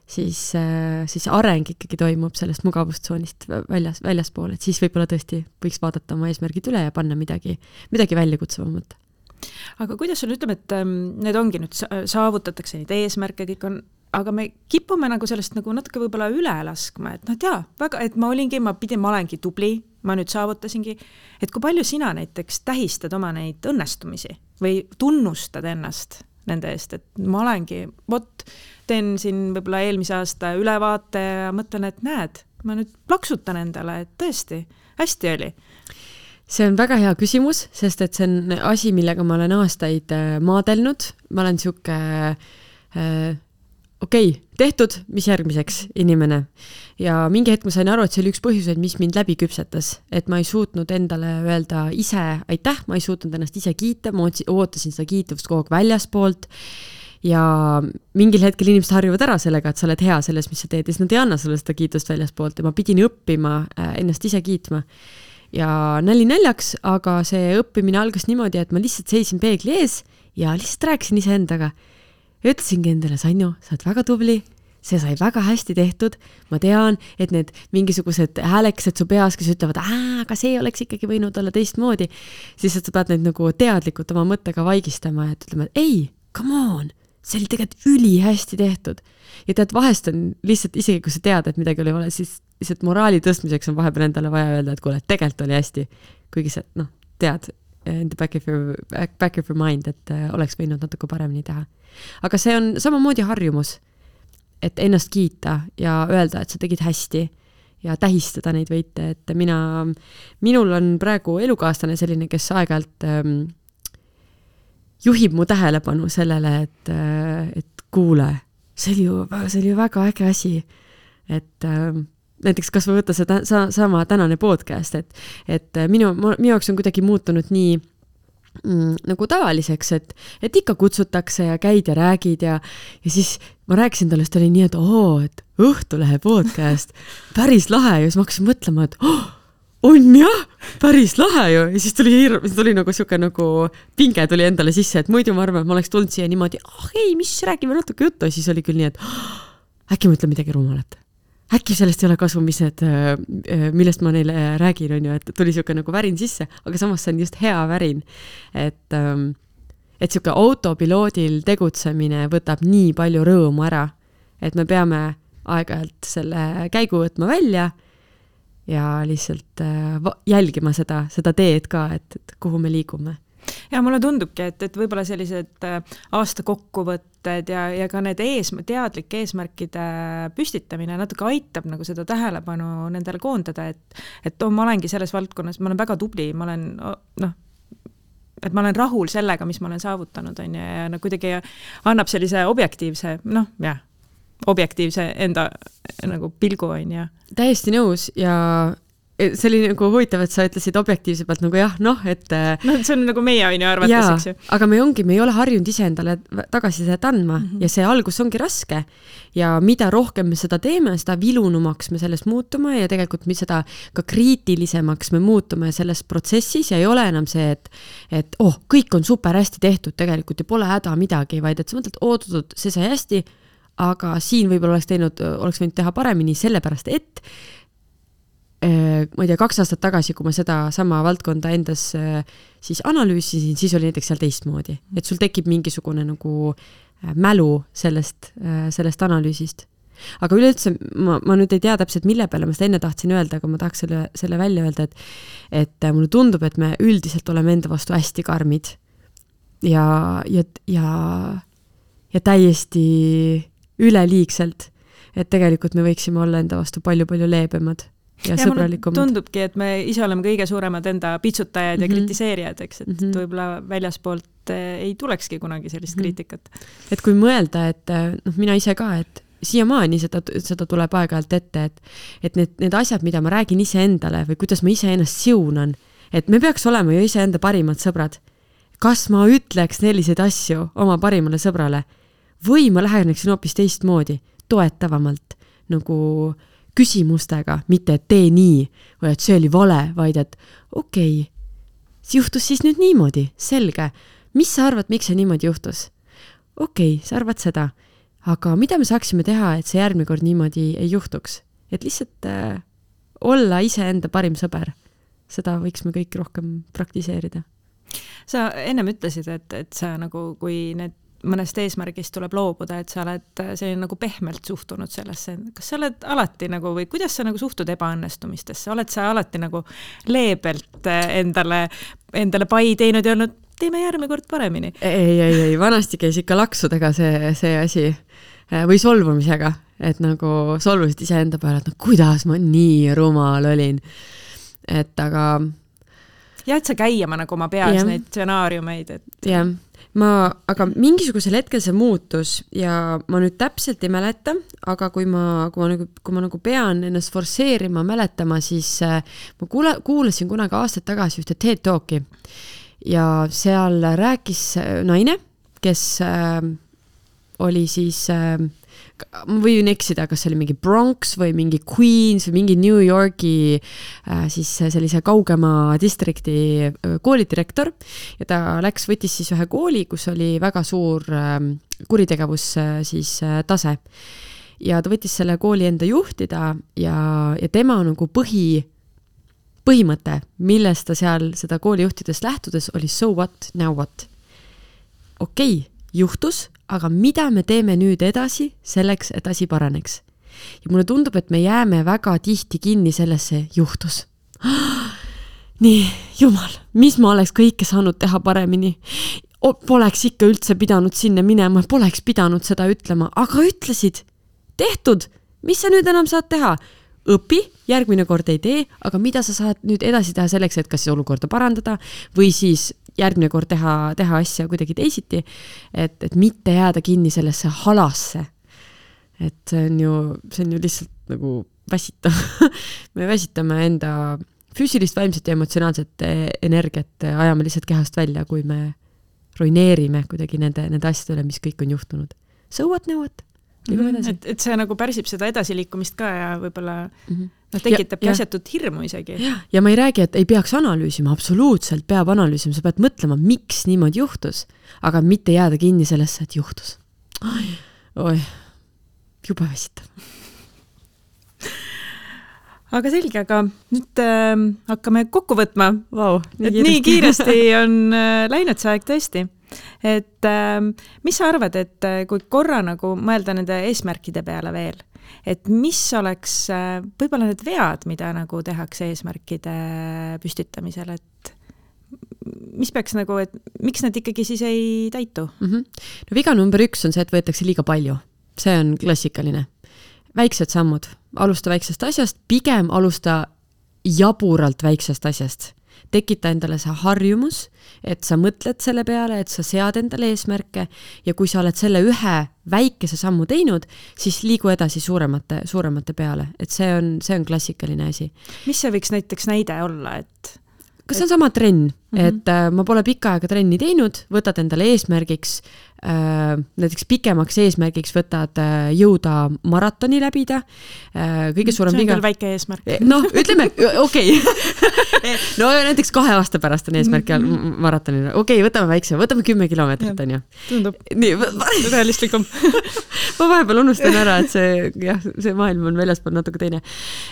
siis areng ikkagi toimub sellest mugavustsoonist väljaspool, et siis võib-olla tõesti võiks vaadata oma eesmärgid üle ja panna midagi väljakutsavamat. Aga kuidas sul ütleme, et need ongi nüüd saavutatakse neid eesmärke, kõik on, aga me kipume nagu sellest nagu natuke võib-olla üle laskma, et et ma olengi tubli, ma nüüd saavutasingi, et kui palju sina näiteks tähistad oma neid õnnestumisi või tunnustad ennast nende eest, et ma olengi, teen siin võib-olla eelmise aasta ülevaate ja mõtlen, et näed, ma nüüd plaksutan endale, et tõesti, hästi oli. See on väga hea küsimus, sest et see on asi, millega ma olen aastaid maadelnud. Ma olen siuke tehtud, mis järgmiseks inimene. Ja mingi hetk ma sain aru, et see oli üks põhjuseid, mis mind läbi küpsetas. Et ma ei suutnud endale öelda ise aitäh, ma ei suutnud ennast ise kiita, ma ootasin seda kiituvust kogu aeg väljaspoolt. Ja mingil hetkel inimesed harjuvad ära sellega, et sa oled hea selles, mis sa teed, ja siis nad ei anna sulle seda kiitust väljaspoolt ja ma pidin õppima ennast ise kiitma. Ja naljaks, aga see õppimine algas niimoodi, et ma lihtsalt seisin peegli ees ja lihtsalt rääkisin ise endaga. Ja ütlesingi endale, Sanju, sa oled väga tubli, see sai väga hästi tehtud, ma tean, et need mingisugused häälekesed su peas, kes ütlevad, aga see oleks ikkagi võinud olla teistmoodi, siis sa pead neid nagu teadlikult oma mõttega vaigistama, et ütlema, et ei, come on, see oli tegelikult üli hästi tehtud. Ja tead, vahest on lihtsalt, isegi kui sa tead, et midagi oli vale, siis lihtsalt moraali tõstmiseks on vahepeal endale vaja öelda, et kuule, tegelikult oli hästi, kuigi sa tead in the back of your mind, et oleks võinud natuke paremini teha. Aga see on samamoodi harjumus, et ennast kiita ja öelda, et sa tegid hästi ja tähistada neid võite, et minul on praegu elukaaslane selline, kes aeg-ajalt juhib mu tähelepanu sellele, et kuule, see oli ju väga äge asi, et näiteks kas või võtta see sama tänane podcast, et minu jaoks on kuidagi muutunud nii nagu tavaliseks, et ikka kutsutakse ja käid ja räägid ja siis ma rääkisin talle, et oli nii, et Õhtulehe podcast, päris lahe ja siis ma hakkasin mõtlema, et on jah, päris lahe ju ja siis tuli nagu siuke nagu pinge tuli endale sisse, et muidu ma arvan, et ma oleks tulnud siia niimoodi, ei, mis räägime natuke juttu ja siis oli küll nii, et äkki ma ütlen midagi rumalat. Äkki sellest ei ole kasu, millest ma neile räägin, on ju, et tuli siuke nagu värin sisse, aga samas see on just hea värin, et siuke autopiloodil tegutsemine võtab nii palju rõõmu ära, et me peame aeg-ajalt selle käigu võtma välja ja lihtsalt jälgima seda teed ka, et kuhu me liigume. Ja mulle tundubki, et võib-olla sellised aasta kokkuvõtted ja ka need teadlike eesmärkide püstitamine natuke aitab nagu seda tähelepanu nendele koondada, et ma olengi selles valdkonnas, ma olen väga tubli, ma olen et ma olen rahul sellega, mis ma olen saavutanud, on ju, ja kuidagi annab sellise objektiivse, objektiivse enda nagu pilgu, on ju. Täiesti nõus ja see oli nagu huvitav, et sa ütlesid objektiivse pealt nagu jah, et... see on nagu meie on ju arvates, eks ju. Aga me ei ole harjunud ise endale tagasisidet andma ja see algus ongi raske. Ja mida rohkem me seda teeme, seda vilunumaks me sellest muutume ja tegelikult me seda ka kriitilisemaks me muutume selles protsessis ja ei ole enam see, et kõik on super hästi tehtud tegelikult ja pole häda midagi, vaid et sa mõtled, oodatud, see sai hästi, aga siin võib-olla oleks võinud teha paremini sellepärast, et ma ei tea, 2 aastat tagasi, kui ma seda sama valdkonda endas siis analüüsisin, siis oli näiteks seal teistmoodi. Et sul tekib mingisugune nagu mälu sellest analüüsist. Aga üleüldse, ma nüüd ei tea täpselt, mille peale ma seda enne tahtsin öelda, aga ma tahaks selle välja öelda, et mulle tundub, et me üldiselt oleme enda vastu hästi karmid ja täiesti üleliigselt, et tegelikult me võiksime olla enda vastu palju-palju leebemad. Ja sõbralikumad. Tundubki, et me ise oleme kõige suuremad enda pitsutajad ja kritiseerijad, eks, et võib-olla väljaspoolt ei tulekski kunagi sellist kriitikat. Et kui mõelda, et mina ise ka, et siiamaani seda tuleb aeg-ajalt ette, et need asjad, mida ma räägin ise endale või kuidas ma ise ennast siunan, et me peaks olema ju ise enda parimad sõbrad. Kas ma ütleks selliseid asju oma parimale sõbrale või ma läheneksin hoopis teistmoodi, toetavamalt, nagu küsimustega, mitte et tee nii või et see oli vale, vaid et okei, see juhtus siis nüüd niimoodi, selge. Mis sa arvad, miks see niimoodi juhtus? Okei, sa arvad seda, aga mida me saaksime teha, et see järgmine kord niimoodi ei juhtuks? Et lihtsalt olla ise enda parim sõber. Seda võiks me kõik rohkem praktiseerida. Sa ennem ütlesid, et sa nagu, kui need mõnest eesmärgist tuleb loobuda, et sa oled selline nagu pehmelt suhtunud sellesse. Kas sa oled alati nagu, või kuidas sa nagu suhtud ebaõnnestumistesse? Oled sa alati nagu leebelt endale pai teinud ja olnud, teeme järgmine kord paremini? Ei, vanasti käis ikka laksudega see asi või solvumisega, et nagu solvusid ise enda peale, et kuidas ma nii rumal olin. Et aga... Ja, et sa käima nagu oma peas neid stsenaariumeid. Jah. Aga mingisugusel hetkel see muutus ja ma nüüd täpselt ei mäleta, aga kui ma nagu pean ennast forseerima mäletama, siis ma kuulasin kunagi aastaid tagasi ühte TED Talki ja seal rääkis naine, kes oli siis, ma võin eksida, kas see oli mingi Bronx või mingi Queens või mingi New Yorki siis sellise kaugema distrikti koolidirektor ja ta võttis siis ühe kooli, kus oli väga suur kuritegevus siis tase. Ja ta võttis selle kooli enda juhtida ja tema nagu põhimõte, millest ta seal seda kooli juhtidest lähtudes oli so what, now what. Okei, juhtus, aga mida me teeme nüüd edasi selleks, et asi paraneks? Ja mulle tundub, et me jääme väga tihti kinni sellesse juhtus. Nii, jumal, mis ma oleks kõike saanud teha paremini? Poleks ikka üldse pidanud sinna minema, poleks pidanud seda ütlema, aga ütlesid, tehtud, mis sa nüüd enam saad teha? Õpi, järgmine kord ei tee, aga mida sa saad nüüd edasi teha selleks, et kas olukorda parandada või siis järgmine kord teha asja kuidagi teisiti, et mitte jääda kinni sellesse halasse. Et see on ju lihtsalt nagu väsitav. Me väsitame enda füüsilist, vaimset ja emotsionaalset energiat, ajame lihtsalt kehast välja, kui me ruineerime kuidagi nende asjadele, mis kõik on juhtunud. So what, now what? Et see nagu pärsib seda edasiliikumist ka ja võib-olla tekitabki asjatut hirmu isegi. Ja ma ei räägi, et ei peaks analüüsima, absoluutselt peab analüüsima, sa pead mõtlema, miks niimoodi juhtus, aga mitte jääda kinni sellesse, et juhtus. Oi, juba väsitav. Aga selge, aga nüüd hakkame kokku võtma. Vau, nii kiiresti on läinud see aeg tõesti. Et mis sa arvad, et kui korra nagu mõelda nende eesmärkide peale veel, et mis oleks võib-olla need vead, mida nagu tehakse eesmärkide püstitamisel, et mis peaks nagu, et miks need ikkagi siis ei täitu? No viga number 1 on see, et võetakse liiga palju. See on klassikaline. Väiksed sammud. Alusta väiksest asjast, pigem alusta jaburalt väiksest asjast. tekita endale see harjumus, et sa mõtled selle peale, et sa sead endale eesmärke ja kui sa oled selle ühe väikese sammu teinud, siis liigu edasi suuremate peale, et see on klassikaline asi. Mis see võiks näiteks näide olla, et kas see on sama trenn, et ma pole pikka aega trenni teinud, võtad endale eesmärgiks, näiteks pikemaks eesmärgiks võtad jõuda maratoni läbida, kõige suurem viga. See on küll väike eesmärk. Noh, ütleme, okei. No näiteks 2 aasta pärast on eesmärk maratonina. Okei, võtame väikse, võtame 10 kilomeetrit, on ju. Tundub realistlikum. Ma vahepeal unustan ära, et see maailm on väljaspool natuke teine.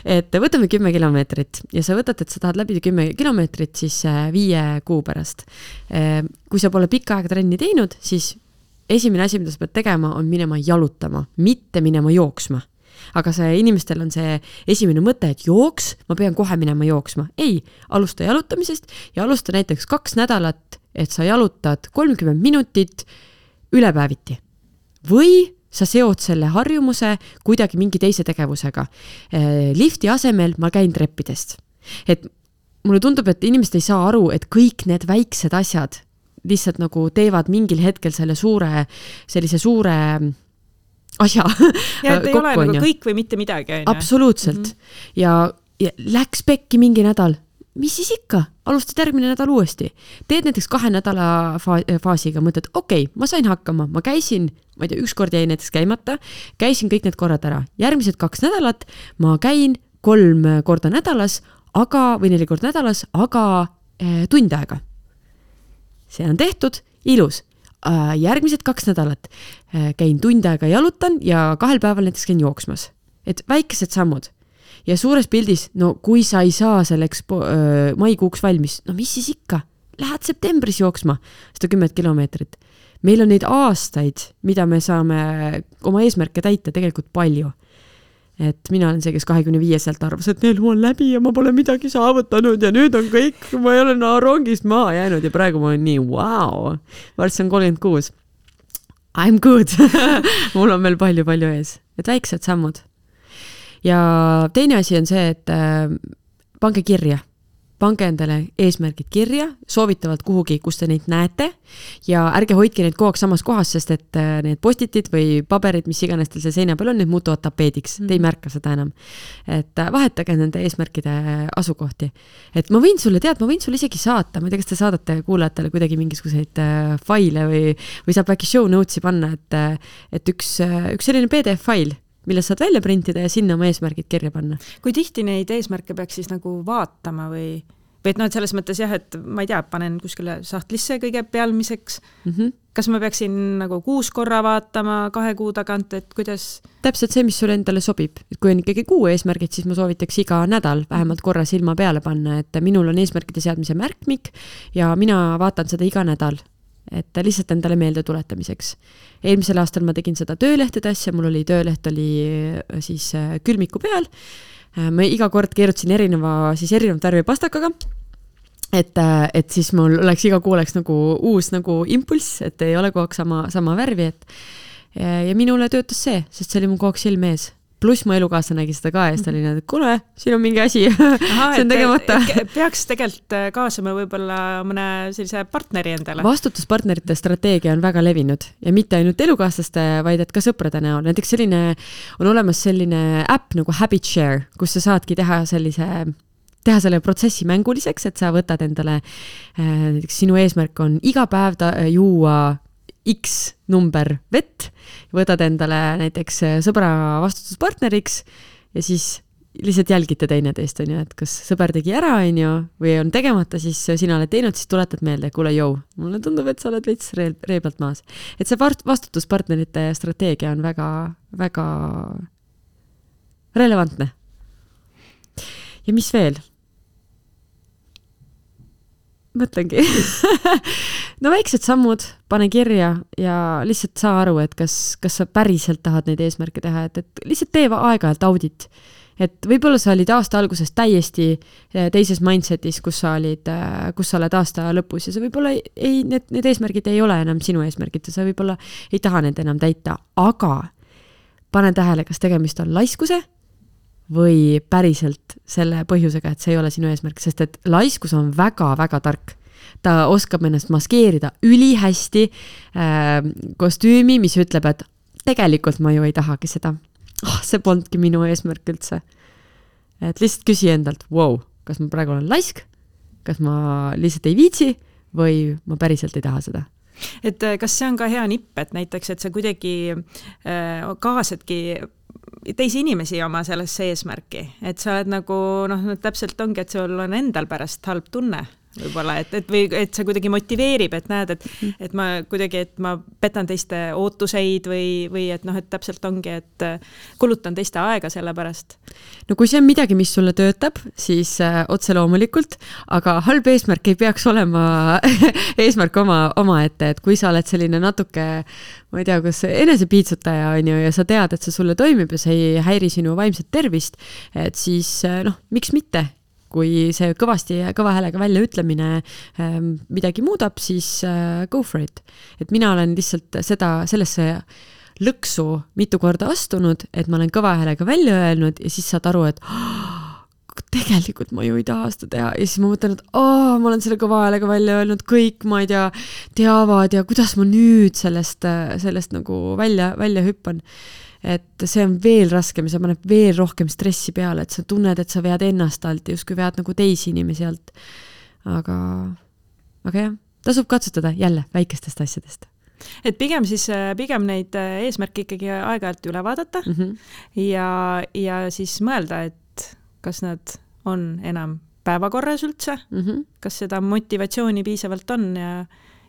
Et võtame 10 kilomeetrit ja sa võtad, et sa tahad läbida 10 kilomeetrit siis 5 kuu pärast. Kui sa pole pikka aega trenni teinud, siis esimene asi, mida sa pead tegema, on minema jalutama, mitte minema jooksma. Aga inimestel on see esimene mõte, et jooks, ma pean kohe minema jooksma. Ei, alusta jalutamisest ja alusta näiteks 2 nädalat, et sa jalutad 30 minutit ülepäeviti. Või sa seod selle harjumuse kuidagi mingi teise tegevusega. Lifti asemel ma käin treppidest. Et mulle tundub, et inimesed ei saa aru, et kõik need väiksed asjad lihtsalt nagu teevad mingil hetkel sellise suure asja. Ja et ei ole nagu kõik või mitte midagi. Absoluutselt. Ja läks pekki mingi nädal. Mis siis ikka? Alustad järgmine nädal uuesti. Teed näiteks 2 nädala faasiga, mõtled, okei, ma sain hakkama, ma käisin, ma ei tea, 1 kord jäi näiteks käimata, käisin kõik need korrad ära. Järgmised 2 nädalat ma käin 3 korda nädalas, või 4 korda nädalas, aga tund aega. See on tehtud, ilus. Järgmised 2 nädalat käin tund aega jalutan ja 2 päeval näiteks käin jooksmas. Et väikesed sammud. Ja suures pildis, no kui sa ei saa selleks maikuuks valmis, no mis siis ikka? Lähed septembris jooksma 110 kilomeetrit. Meil on neid aastaid, mida me saame oma eesmärke täita tegelikult palju. Et mina olen see, kes 25-selt arvas, et neil on läbi ja ma pole midagi saavutanud ja nüüd on kõik, ma ei ole rongist maha jäänud ja praegu ma olen nii, wow, varsti on 36. I'm good. Mul on veel palju ees. Et väiksed sammud. Ja teine asi on see, et pange kirja. Pange endale eesmärgid kirja, soovitavalt kuhugi, kus te neid näete ja ärge hoidke neid kogu aeg samas kohas, sest et need postitid või paberid, mis iganes teil see seina peal on, need muutuvad tapeediks. Te ei märka seda enam. Et vahetage nende eesmärkide asukohti. Et ma võin sulle isegi saata, ma ei tea, kas te saadate kuulajatele kuidagi mingisuguseid faile või saab äkki show notes'i panna, et üks selline PDF-fail, mille saad välja printida ja sinna oma eesmärgid kirja panna. Kui tihti neid eesmärke peaks siis nagu vaatama või et et selles mõttes jah, et ma ei tea, panen kuskile sahtlisse kõige pealmiseks. Kas ma peaksin nagu 6 korra vaatama 2 kuu tagant, et kuidas? Täpselt see, mis sulle endale sobib. Et kui on ikkagi 6 eesmärgid, siis ma soovitaks iga nädal vähemalt korra silma peale panna, et minul on eesmärkide seadmise märkmik ja mina vaatan seda iga nädal. Et lihtsalt endale meelde tuletamiseks. Eelmisel aastal ma tegin seda töölehtede asja, mul oli tööleht siis külmiku peal. Ma iga kord keerutasin erinevat värvi pastakaga, et siis mul oleks iga kuu oleks nagu uus nagu impulss, et ei ole kogu aeg sama värvi. Ja minule töötas see, sest see oli mu kogu aeg silme ees. Pluss mu elukaasa nägi seda ka ja siis ta oli need, kuule, siin on mingi asi, see on tegemata. Peaks tegelikult kaasama võib-olla mõne sellise partneri endale. Vastutuspartnerite strateegia on väga levinud ja mitte ainult elukaaslaste, vaid et ka sõprade näol. Näiteks on olemas selline äpp nagu Habit Share, kus sa saadki teha selle protsessi mänguliseks, et sa võtad endale, näiteks sinu eesmärk on iga päev juua X number vett, võtad endale näiteks sõbra vastutuspartneriks ja siis lihtsalt jälgite teineteist, et kas sõber tegi ära või on tegemata, siis sina oled teinud, siis tuletad meelde, kuule jõu, mulle tundub, et sa oled veits reeblalt maas. Et see vastutuspartnerite strateegia on väga, väga relevantne. Ja mis veel? Mõtlengi. No väiksed sammud, pane kirja ja lihtsalt saa aru, et kas sa päriselt tahad neid eesmärke teha, et lihtsalt tee aeg-ajalt audit. Et võib-olla sa olid aasta alguses täiesti teises mindsetis, kus sa oled aasta lõpus ja sa võib-olla need eesmärgid ei ole enam sinu eesmärgid ja sa võib-olla ei taha need enam täita, aga pane tähele, kas tegemist on laiskuse või päriselt selle põhjusega, et see ei ole sinu eesmärk, sest et laiskus on väga-väga tark. Ta oskab ennast maskeerida ülihästi kostüümi, mis ütleb, et tegelikult ma ju ei tahagi seda. See polnudki minu eesmärk üldse. Et lihtsalt küsi endalt, wow, kas ma praegu olen laisk, kas ma lihtsalt ei viitsi või ma päriselt ei taha seda. Et kas see on ka hea nipp, et näiteks, et sa kuidagi kaasadki teisi inimesi oma sellesse eesmärki, et sa oled nagu, täpselt ongi, et sul on endal pärast halb tunne võib-olla, või et see kuidagi motiveerib, et näed, et ma kuidagi, et ma petan teiste ootuseid või et et täpselt ongi, et kulutan teiste aega selle pärast. No kui see on midagi, mis sulle töötab, siis otse loomulikult, aga halb eesmärk ei peaks olema eesmärk oma ette, et kui sa oled selline natuke, ma ei tea, kas enesepiitsutaja on ju, ja sa tead, et see sulle toimib ja see ei häiri sinu vaimset tervist, et siis miks mitte? Kui see kõva häälega välja ütlemine midagi muudab, siis go for it. Et mina olen lihtsalt sellesse lõksu mitu korda astunud, et ma olen kõva häälega välja öelnud ja siis saad aru, et tegelikult ma ju ei taha seda teha. Ja siis ma mõtlen, et ma olen selle kõva häälega välja öelnud, kõik, ma ei tea, teavad ja kuidas ma nüüd sellest nagu välja hüppan. Et see on veel raskem ja see paneb veel rohkem stressi peale, et sa tunned, et sa vead ennast alt ja justkui vead nagu teisi inimesi alt. Aga jah, tasub katsutada jälle väikestest asjadest. Et pigem neid eesmärke ikkagi aeg-ajalt üle vaadata ja siis mõelda, et kas nad on enam päevakorras üldse, kas seda motivatsiooni piisavalt on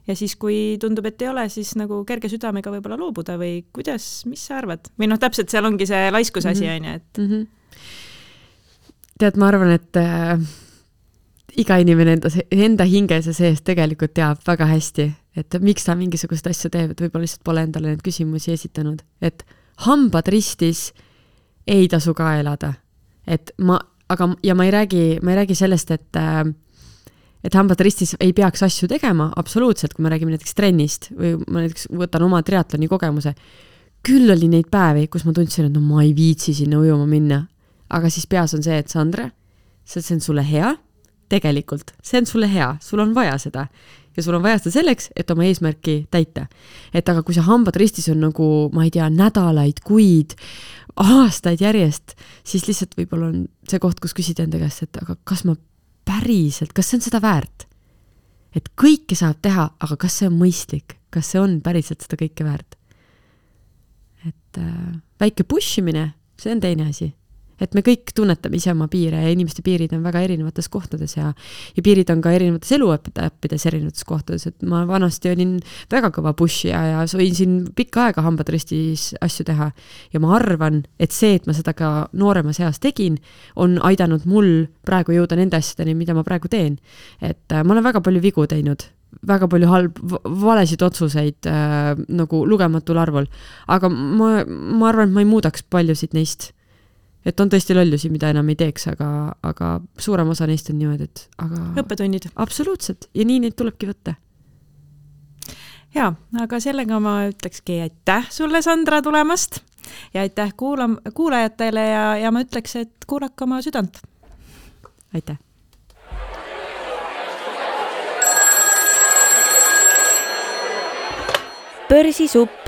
ja siis, kui tundub, et ei ole, siis nagu kerge südamega võib-olla loobuda või kuidas, mis sa arvad? Või täpselt seal ongi see laiskuse asi, on ju, et... Tead, ma arvan, et iga inimene enda hinges ja sees tegelikult teab väga hästi, et miks ta mingisugust asju teeb, et võib-olla lihtsalt pole endale need küsimusi esitanud. Et hambad ristis ei tasu ka elada. Ja ma ei räägi sellest, et hambad ristis ei peaks asju tegema, absoluutselt, kui me räägime näiteks trennist või ma näiteks võtan oma triatloni kogemuse. Küll oli neid päevi, kus ma tundsin, et ma ei viitsi sinna ujuma minna. Aga siis peas on see, et Sandra, see on sulle hea, tegelikult, see on sulle hea, sul on vaja seda. Ja sul on vaja seda selleks, et oma eesmärki täita. Et aga kui see hambad ristis on nagu, ma ei tea, nädalaid, kuid, aastaid järjest, siis lihtsalt võib-olla on see koht, kus küsida enda käest, et aga kas ma päriselt, kas see on seda väärt? Et kõike saab teha, aga kas see on mõistlik? Kas see on päriselt seda kõike väärt? Et väike pushimine, see on teine asi. Et me kõik tunnetame ise oma piire ja inimeste piirid on väga erinevates kohtades ja piirid on ka erinevates eluõppides erinevates kohtades, et ma vanasti olin väga kõva pushija ja võin siin pikka aega hambad ristis asju teha ja ma arvan, et see, et ma seda ka nooremas eas tegin, on aidanud mul praegu jõuda nende asjadeni, mida ma praegu teen. Et ma olen väga palju vigu teinud, väga palju valesid otsuseid nagu lugematul arvul, aga ma arvan, et ma ei muudaks paljusid neist. Et on tõesti lollusi, mida enam ei teeks, aga suurem osa neist on niimoodi, et õppetunnid. Absoluutselt. Ja nii neid tulebki võtta. Ja, aga sellega ma ütlekski aitäh sulle, Sandra, tulemast ja aitäh kuulajatele ja ma ütleks, et kuulake oma südant. Aitäh. Börsisupp